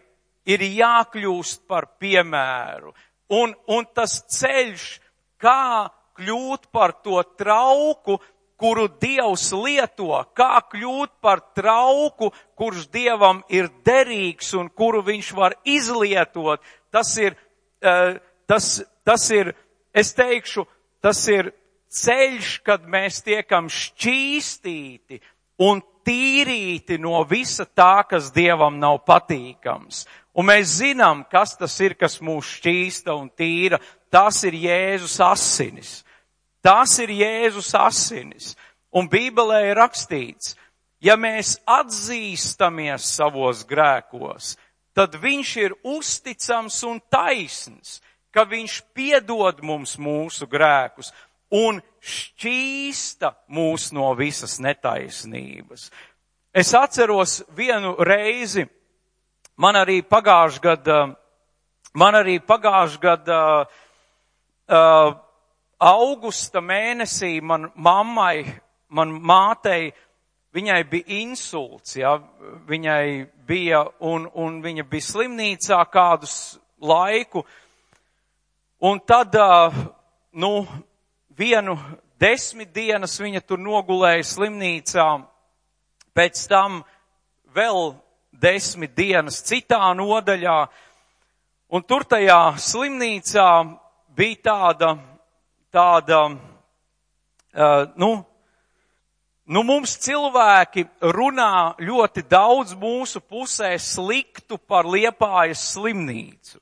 ir jākļūst par piemēru. Un tas ceļš, kā kļūt par to trauku, kuru Dievs lieto, kā kļūt par trauku, kurš Dievam ir derīgs un kuru viņš var izlietot, tas ir, es teikšu, tas ir ceļš, kad mēs tiekam šķīstīti un tīrīti no visa tā, kas Dievam nav patīkams. Un mēs zinām, kas tas ir, kas mūs šķīsta un tīra. Tas ir Jēzus asinis. Tas ir Jēzus asinis. Un Bībelē ir rakstīts, ja mēs atzīstamies savos grēkos, tad viņš ir uzticams un taisns, ka viņš piedod mums mūsu grēkus un šķīsta mūs no visas netaisnības. Es atceros vienu reizi, man arī pagājušajā gadā augusta mēnesī man mātei, viņai bija insults, ja, viņai bija, un viņa bija slimnīcā kādus laiku, un tad, vienu 10 dienas viņa tur nogulēja slimnīcā, pēc tam vēl 10 dienas citā nodaļā, un tur tajā slimnīcā bija tāda, mums cilvēki runā ļoti daudz mūsu pusē sliktu par Liepājas slimnīcu.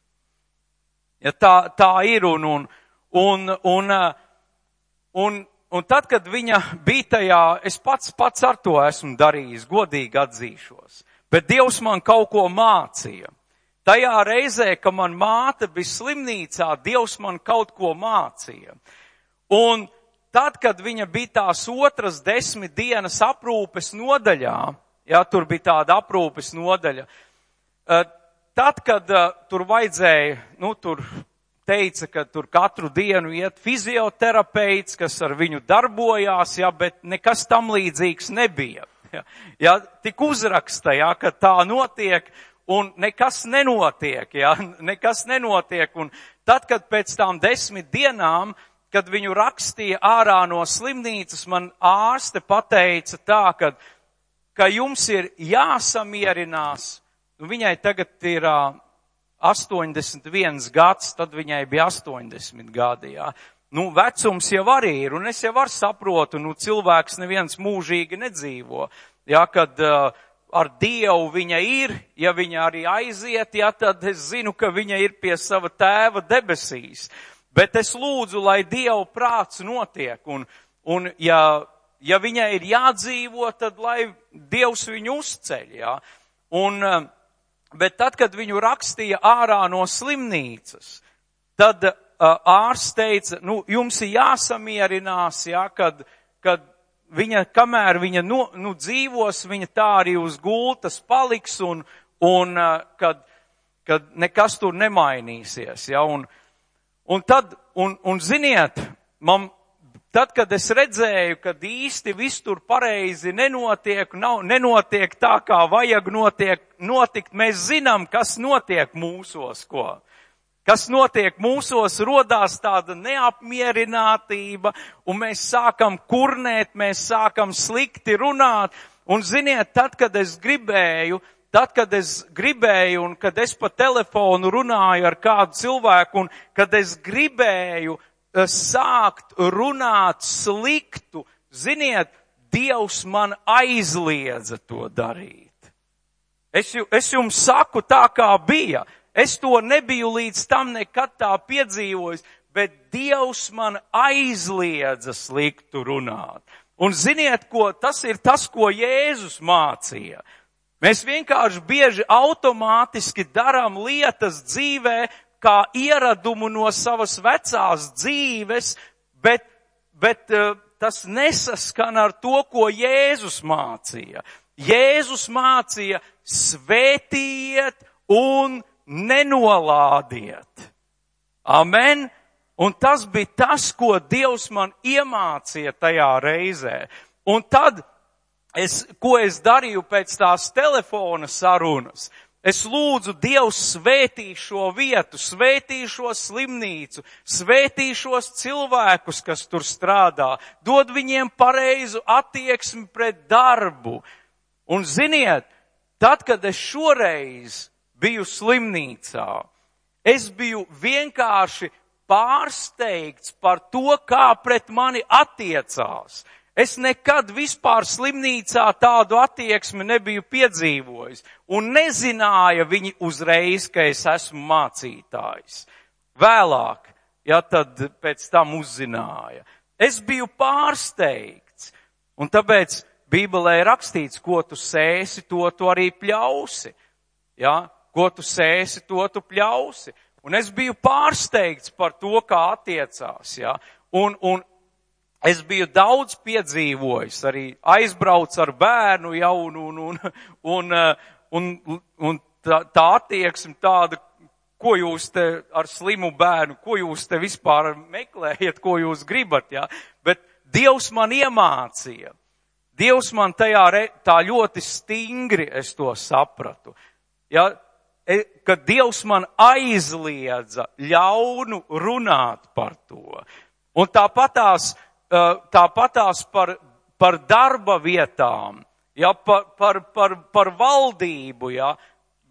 Ja tā ir, un tad, kad viņa bija tajā, es pats ar to esmu darījis, godīgi atzīšos, bet Dievs man kaut ko mācīja. Tajā reizē, ka man māte bija slimnīcā, Dievs man kaut ko mācīja. Un tad, kad viņa bija tās otras 10 dienas aprūpes nodaļā, ja tur bija tāda aprūpes nodaļa, tad, kad tur vajadzēja, tur teica, ka tur katru dienu iet fizioterapeits, kas ar viņu darbojās, ja, bet nekas tam līdzīgs nebija. Ja, tik uzraksta, ja, ka tā notiek, un nekas nenotiek, ja, nekas nenotiek. Un tad, kad pēc tām 10 dienām, kad viņu rakstīja ārā no slimnīcas, man ārste pateica tā, ka jums ir jāsamierinās. Viņai tagad ir 81 gads, tad viņai bija 80 gadi, jā. Vecums jau arī ir, un es jau saprotu, cilvēks neviens mūžīgi nedzīvo, jā, kad ar Dievu viņa ir, ja viņa arī aiziet, jā, tad es zinu, ka viņa ir pie sava tēva debesīs. Bet es lūdzu, lai Dieva prāts notiek, un ja viņai ir jādzīvo, tad lai Dievs viņu uzceļ, jā. Bet tad, kad viņu rakstīja ārā no slimnīcas, tad ārsts teica, jums ir jāsamierinās, jā, kad viņa, kamēr viņa dzīvos, viņa tā arī uz gultas paliks, un kad nekas tur nemainīsies, jā. Un ziniet, tad, kad es redzēju, kad īsti viss tur pareizi nenotiek tā, kā vajag notikt, mēs zinām, kas notiek mūsos, ko. Kas notiek mūsos, rodās tāda neapmierinātība, un mēs sākam kurnēt, mēs sākam slikti runāt, un ziniet, tad, kad es gribēju, un kad es pa telefonu runāju ar kādu cilvēku, un kad es gribēju sākt runāt sliktu, ziniet, Dievs man aizliedza to darīt. Es jums saku tā, kā bija. Es to nebiju līdz tam nekad tā piedzīvojis, bet Dievs man aizliedza sliktu runāt. Un ziniet, tas ir tas, ko Jēzus mācīja. Mēs vienkārši bieži automātiski darām lietas dzīvē, kā ieradumu no savas vecās dzīves, bet tas nesaskan ar to, ko Jēzus mācīja. Jēzus mācīja svētījiet un nenolādiet. Amen. Un tas bija tas, ko Dievs man iemācīja tajā reizē. Un tad, ko es darīju pēc tās telefona sarunas, es lūdzu, Dievs svētī šo vietu, svētī šo slimnīcu, svētī šos cilvēkus, kas tur strādā, dod viņiem pareizu attieksmi pret darbu. Un ziniet, tad, kad es šoreiz biju slimnīcā, es biju vienkārši pārsteigts par to, kā pret mani attiecās. Es nekad vispār slimnīcā tādu attieksmi nebiju piedzīvojis, un nezināja viņi uzreiz, ka es esmu mācītājs. Vēlāk, ja tad pēc tam uzzināja. Es biju pārsteigts, un tāpēc Bībelē rakstīts, ko tu sēsi, to tu arī pļausi. Ja? Ko tu sēsi, to tu pļausi. Un es biju pārsteigts par to, kā attiecās. Ja? Un es biju daudz piedzīvojis, arī aizbrauc ar bērnu jaunu, un tā attieksme tāda, ko jūs te ar slimu bērnu, ko jūs te vispār meklējat, ko jūs gribat. Ja? Bet Dievs man iemācīja. Dievs man tā ļoti stingri es to sapratu. Ja? Kad Dievs man aizliedza ļaunu runāt par to. Un tāpatās par darba vietām, ja, par valdību, ja.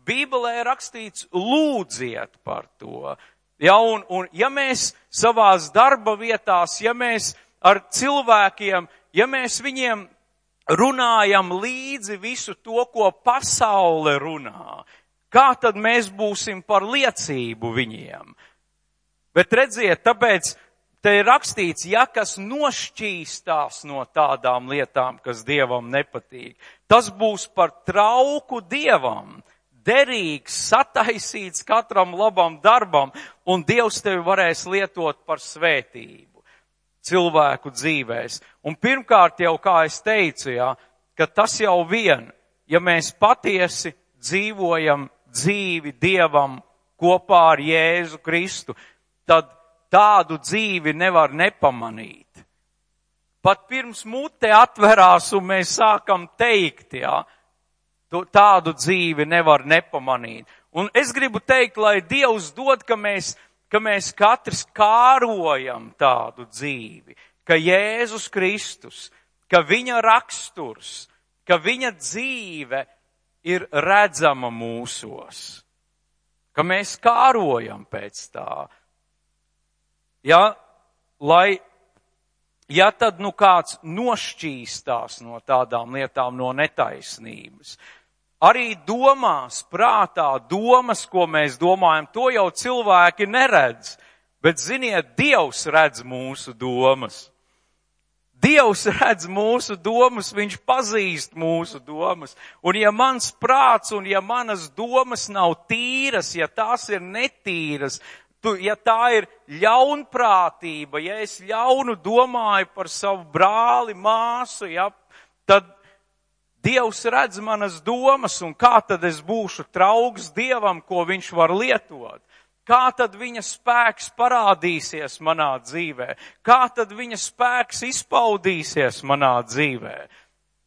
Bībelē rakstīts lūdziet par to. Ja, un ja mēs savās darba vietās, ja mēs ar cilvēkiem, ja mēs viņiem runājam līdzi visu to, ko pasaule runā, kā tad mēs būsim par liecību viņiem? Bet redziet, tāpēc te ir rakstīts, ja kas nošķīstās no tādām lietām, kas Dievam nepatīk, tas būs par trauku Dievam, derīgs, sataisīts katram labam darbam, un Dievs tevi varēs lietot par svētību cilvēku dzīvēs. Un pirmkārt jau, kā es teicu, ka tas jau vien, ja mēs patiesi dzīvojam dzīvi Dievam kopā ar Jēzu Kristu, tad tādu dzīvi nevar nepamanīt. Pat pirms mute atverās un mēs sākam teikt, tādu dzīvi nevar nepamanīt. Un es gribu teikt, lai Dievs dod, ka mēs katrs kārojam tādu dzīvi, ka Jēzus Kristus, ka viņa raksturs, ka viņa dzīve ir redzama mūsos, ka mēs kārojam pēc tā. Ja tad kāds nošķīstās no tādām lietām, no netaisnības, arī domās, prātā, domas, ko mēs domājam, to jau cilvēki neredz, bet ziniet, Dievs redz mūsu domas. Dievs redz mūsu domas, viņš pazīst mūsu domas, un ja mans prāts un ja manas domas nav tīras, ja tās ir netīras, ja tā ir ļaunprātība, ja es ļaunu domāju par savu brāli, māsu, tad Dievs redz manas domas, un kā tad es būšu trauks Dievam, ko viņš var lietot? Kā tad viņa spēks parādīsies manā dzīvē? Kā tad viņa spēks izpaudīsies manā dzīvē?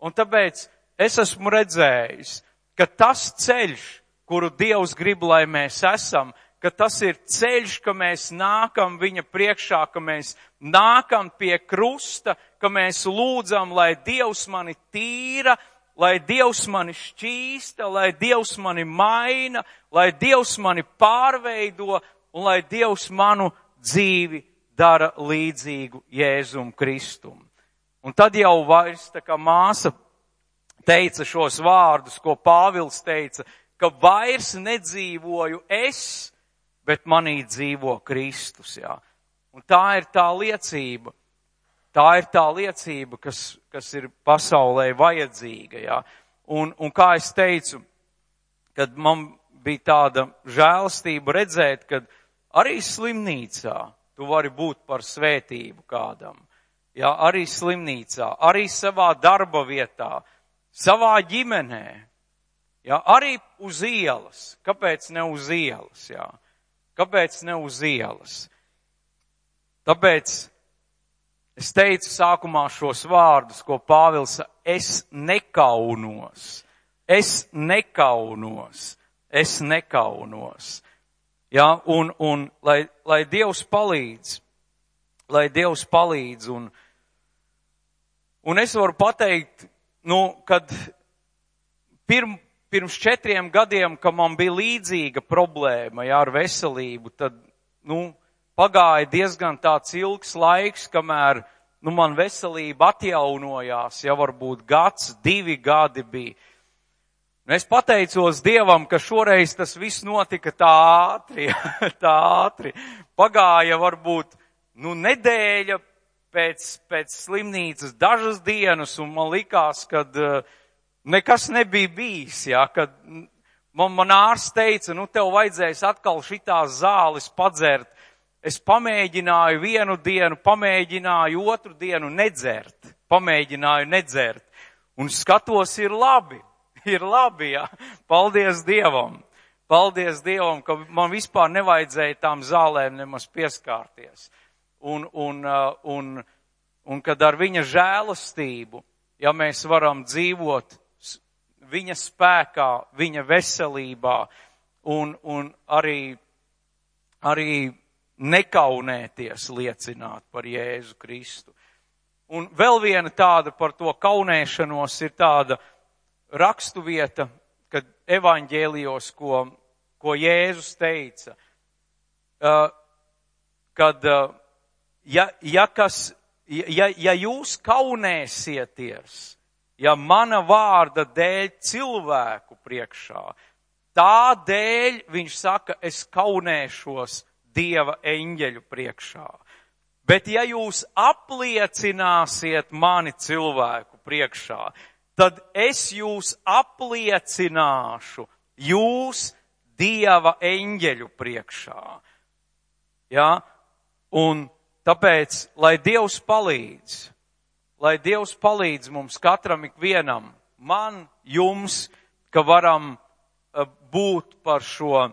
Un tāpēc es esmu redzējis, ka tas ceļš, kuru Dievs grib, lai mēs esam, ka tas ir ceļš, ka mēs nākam viņa priekšā, ka mēs nākam pie krusta, ka mēs lūdzam, lai Dievs mani tīra, lai Dievs mani šķīsta, lai Dievs mani maina, lai Dievs mani pārveido un lai Dievs manu dzīvi dara līdzīgu Jēzum Kristum. Un tad jau vairs, tā kā māsa teica šos vārdus, ko Pāvils teica, ka vairs nedzīvoju es, bet manī dzīvo Kristus. Un tā ir tā liecība. Tā ir tā liecība, kas ir pasaulē vajadzīga. Un kā es teicu, kad man bija tāda žēlastība redzēt, kad arī slimnīcā tu vari būt par svētību kādam. Arī slimnīcā, arī savā darba vietā, savā ģimenē. Arī uz ielas. Kāpēc ne uz ielas? Kāpēc ne uz ielas? Tāpēc es teicu sākumā šos vārdus, ko Pāvils, es nekaunos. Un lai Dievs palīdz, un es varu pateikt, kad pirms 4 gadiem, kad man bija līdzīga problēma, ar veselību, tad, pagāja diezgan tāds ilgs laiks, kamēr, man veselība atjaunojās, varbūt 1, 2 gadi bija. Un es pateicos Dievam, ka šoreiz tas viss notika tā ātri. Pagāja varbūt, nedēļa pēc slimnīcas, dažas dienas, un man likās, kad nekas nebija bijis, kad man ārsts teica, tev vajadzēs atkal šitās zāles padzert. Es pamēģināju 1 dienu, pamēģināju 2 dienu nedzert, un skatos, ir labi, Paldies Dievam, ka man vispār nevajadzēja tām zālēm nemaz pieskārties. Un kad ar viņa žēlastību, mēs varam dzīvot viņa spēkā, viņa veselībā, un arī nekaunēties liecināt par Jēzu Kristu. Un vēl viena tāda par to kaunēšanos ir tāda rakstuvieta, kad evaņģēlijos, ko Jēzus teica, kad ja jūs kaunēsieties ja mana vārda dēļ cilvēku priekšā, tā dēļ viņš saka, es kaunēšos Dieva eņģeļu priekšā. Bet ja jūs apliecināsiet mani cilvēku priekšā, tad es jūs apliecināšu jūs Dieva eņģeļu priekšā. Ja? Un tāpēc, lai Dievs palīdz mums katram ikvienam, man, jums, ka varam būt par šo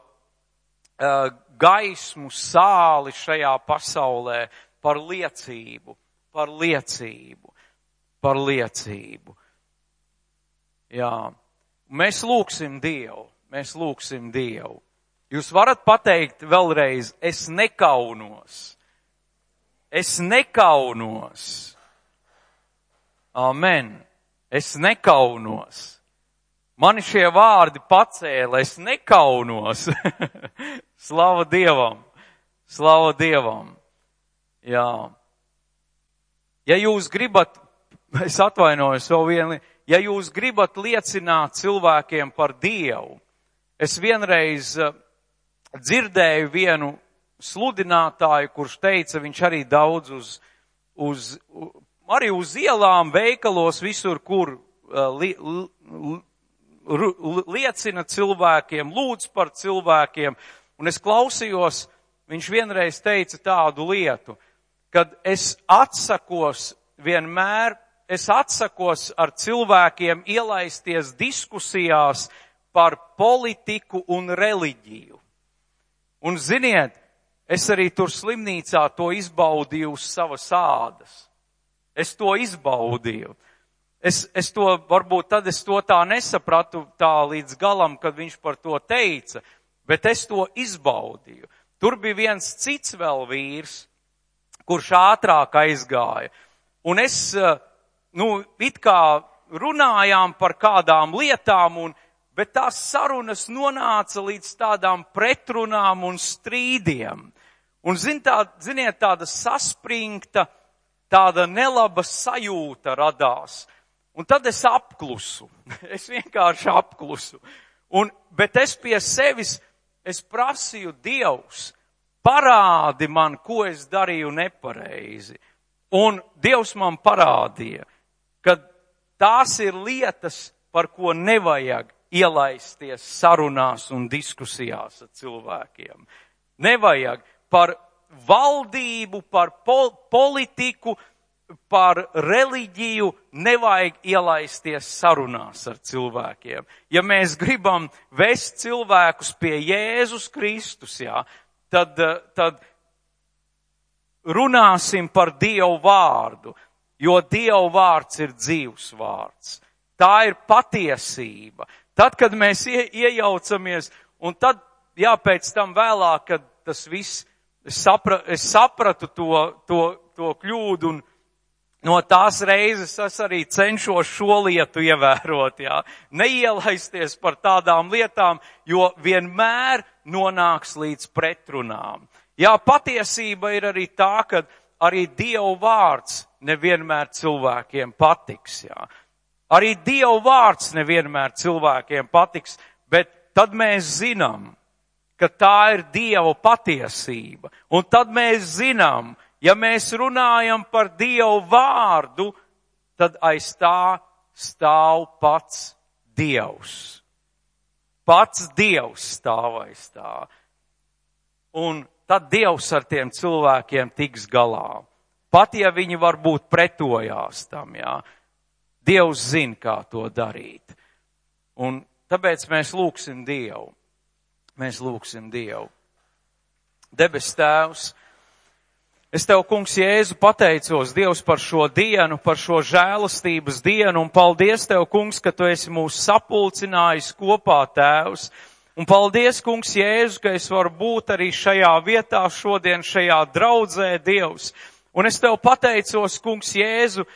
gaismu sāli šajā pasaulē, par liecību. Jā. Mēs lūgsim Dievu. Jūs varat pateikt vēlreiz, es nekaunos. Amen. Es nekaunos. Mani šie vārdi pacēla, es nekaunos. Slava Dievam. Jā. Ja jūs gribat, es atvainojos vēl vienu, ja jūs gribat liecināt cilvēkiem par Dievu, es vienreiz dzirdēju vienu sludinātāju, kurš teica, viņš arī daudz arī uz ielām, veikalos, visur, kur liecina cilvēkiem, lūdz par cilvēkiem. Un es klausījos, viņš vienreiz teica tādu lietu, kad es atsakos ar cilvēkiem ielaisties diskusijās par politiku un reliģiju. Un ziniet, es arī tur slimnīcā to izbaudīju uz savas ādas. Es to izbaudīju. Es to, varbūt tad es to tā nesapratu tā līdz galam, kad viņš par to teica, bet es to izbaudīju. Tur bija viens cits vēl vīrs, kurš ātrāk aizgāja. Un es, it kā runājām par kādām lietām, bet tās sarunas nonāca līdz tādām pretrunām un strīdiem. Un ziniet, tāda saspringta, tāda nelaba sajūta radās. Un tad es apklusu. Es vienkārši apklusu. Bet es pie sevis, es prasīju, Dievs, parādi man, ko es darīju nepareizi. Un Dievs man parādīja, ka tās ir lietas, par ko nevajag ielaisties sarunās un diskusijās ar cilvēkiem. Nevajag par valdību, par politiku, par reliģiju, nevajag ielaisties sarunās ar cilvēkiem. Ja mēs gribam vest cilvēkus pie Jēzus Kristus, tad runāsim par Dievu vārdu, jo Dievu vārds ir dzīvs vārds. Tā ir patiesība. Tad, kad mēs iejaucamies, un tad, pēc tam vēlāk, kad tas viss, es sapratu to kļūdu, un no tās reizes es arī cenšos šo lietu ievērot, neielaisties par tādām lietām, jo vienmēr nonāks līdz pretrunām. Patiesība ir arī tā, ka arī Dievu vārds nevienmēr cilvēkiem patiks, Arī Dievu vārds nevienmēr cilvēkiem patiks, bet tad mēs zinām, ka tā ir Dieva patiesība. Un tad mēs zinām, ja mēs runājam par Dievu vārdu, tad aiz tā stāv pats Dievs. Pats Dievs stāv aiz tā. Un tad Dievs ar tiem cilvēkiem tiks galā. Pat ja viņi varbūt pretojās tam, Dievs zina, kā to darīt. Un tāpēc mēs lūgsim Dievu. Debes Tēvs, es Tev, Kungs Jēzu, pateicos, Dievs, par šo dienu, par šo žēlastības dienu, un paldies Tev, Kungs, ka Tu esi mūs sapulcinājis kopā, Tēvs. Un paldies, Kungs Jēzu, ka es varu būt arī šajā vietā šodien, šajā draudzē, Dievs. Un es Tev pateicos, Kungs Jēzu,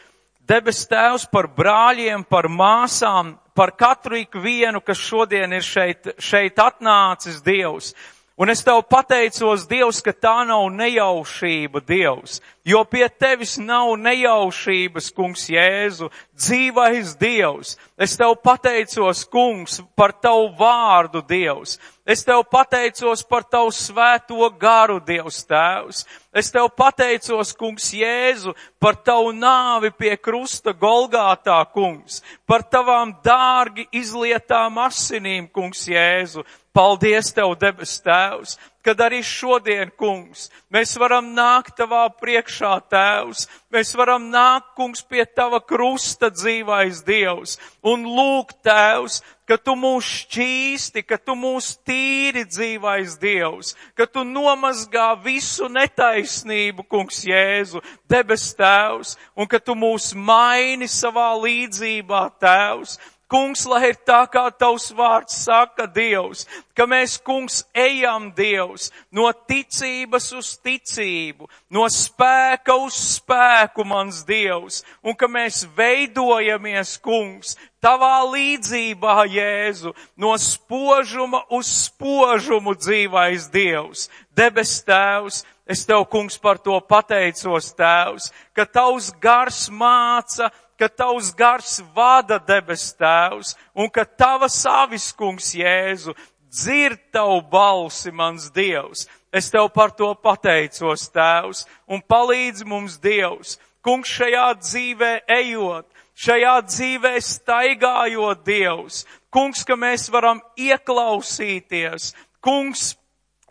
Debes Tēvs, par brāļiem, par māsām, par katru ikvienu, kas šodien ir šeit atnācis, Dievs. Un es Tev pateicos, Dievs, ka tā nav nejaušība, Dievs, jo pie Tevis nav nejaušības, Kungs Jēzu, dzīvais Dievs. Es Tev pateicos, Kungs, par Tavu vārdu, Dievs. Es Tev pateicos par Tavu svēto garu, Dievs Tēvs. Es Tev pateicos, Kungs Jēzu, par Tavu nāvi pie krusta Golgātā, Kungs, par Tavām dārgi izlietām asinīm, Kungs Jēzu. Paldies Tev, debes Tēvs, kad arī šodien, Kungs, mēs varam nākt Tavā priekšā, Tēvs. Mēs varam nākt, Kungs, pie Tava krusta, dzīvais Dievs, un lūgt, Tēvs, ka Tu mūs šķīsti, ka Tu mūs tīri, dzīvais Dievs, ka Tu nomazgā visu netaisnību, Kungs Jēzu, debes Tēvs, un ka Tu mūs maini savā līdzībā, Tēvs. Kungs, lai ir tā, kā Tavs vārds saka, Dievs, ka mēs, Kungs, ejam, Dievs, no ticības uz ticību, no spēka uz spēku, mans Dievs, un ka mēs veidojamies, Kungs, Tavā līdzībā, Jēzu, no spožuma uz spožumu, dzīvais Dievs, debes Tēvs. Es Tev, Kungs, par to pateicos, Tēvs, ka Tavs gars māca, ka Tavs gars vada, debes Tēvs, un ka Tavas avis, Kungs Jēzu, dzird Tavu balsi, mans Dievs. Es Tev par to pateicos, Tēvs, un palīdz mums, Dievs, Kungs, šajā dzīvē ejot, šajā dzīvē staigājot, Dievs, Kungs, ka mēs varam ieklausīties, Kungs,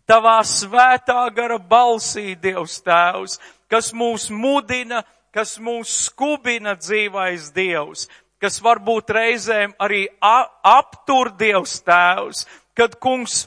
Tavā svētā gara balsī, Dievs Tēvs, kas mūs mudina, kas mūs skubina, dzīvais Dievs, kas varbūt reizēm arī aptur, Dievs Tēvs, kad, Kungs,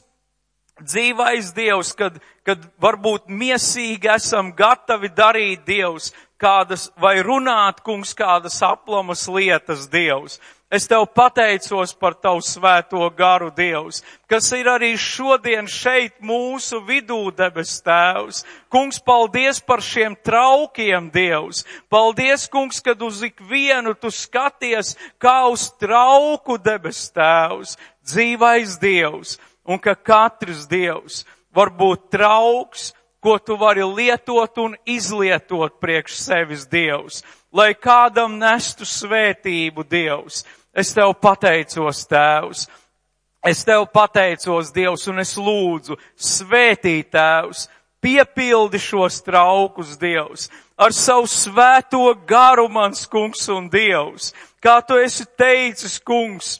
dzīvais Dievs, kad varbūt miesīgi esam gatavi darīt, Dievs, kādas, vai runāt, Kungs, kādas aplamas lietas, Dievs. Es Tev pateicos par Tavu svēto garu, Dievs, kas ir arī šodien šeit mūsu vidū, debes Tēvs. Kungs, paldies par šiem traukiem, Dievs. Paldies, Kungs, kad uz ikvienu Tu skaties kā uz trauku, debes Tēvs, dzīvais Dievs, un ka katrs Dievs var būt trauks, ko Tu vari lietot un izlietot priekš sevis, Dievs, lai kādam nestu svētību, Dievs. Es Tev pateicos, Tēvs. Es Tev pateicos, Dievs, un es lūdzu, svētī, Tēvs, piepildi šos traukus, Dievs, ar savu svēto garu, mans Kungs un Dievs, kā Tu esi teicis, Kungs,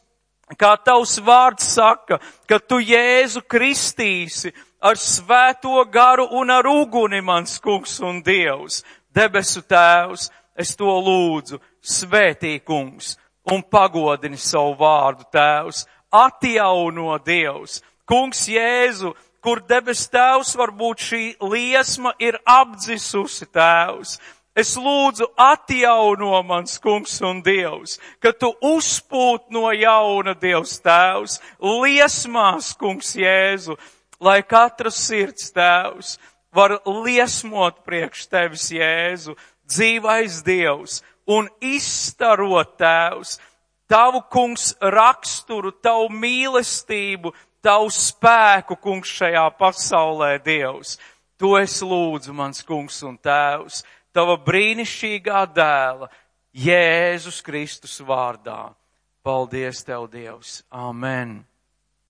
kā Tavs vārds saka, ka Tu Jēzu kristīsi ar svēto garu un ar uguni, mans Kungs un Dievs. Debesu Tēvs, es to lūdzu, svētī, Kungs, un pagodini savu vārdu, Tēvs, atjauno, Dievs. Kungs Jēzu, kur debes Tēvs varbūt šī liesma ir apdzisusi, Tēvs. Es lūdzu atjauno, mans Kungs un Dievs, ka Tu uzpūt no jauna, Dievs Tēvs, liesmās, Kungs Jēzu, lai katra sirds, Tēvs, var liesmot priekš Tevis, Jēzu, dzīvais Dievs, un izstarot, Tēvs, Tavu, Kungs, raksturu, Tavu mīlestību, Tavu spēku, Kungs, šajā pasaulē, Dievs. To es lūdzu, mans Kungs un Tēvs, Tava brīnišķīgā dēla, Jēzus Kristus vārdā. Paldies Tev, Dievs. Amen.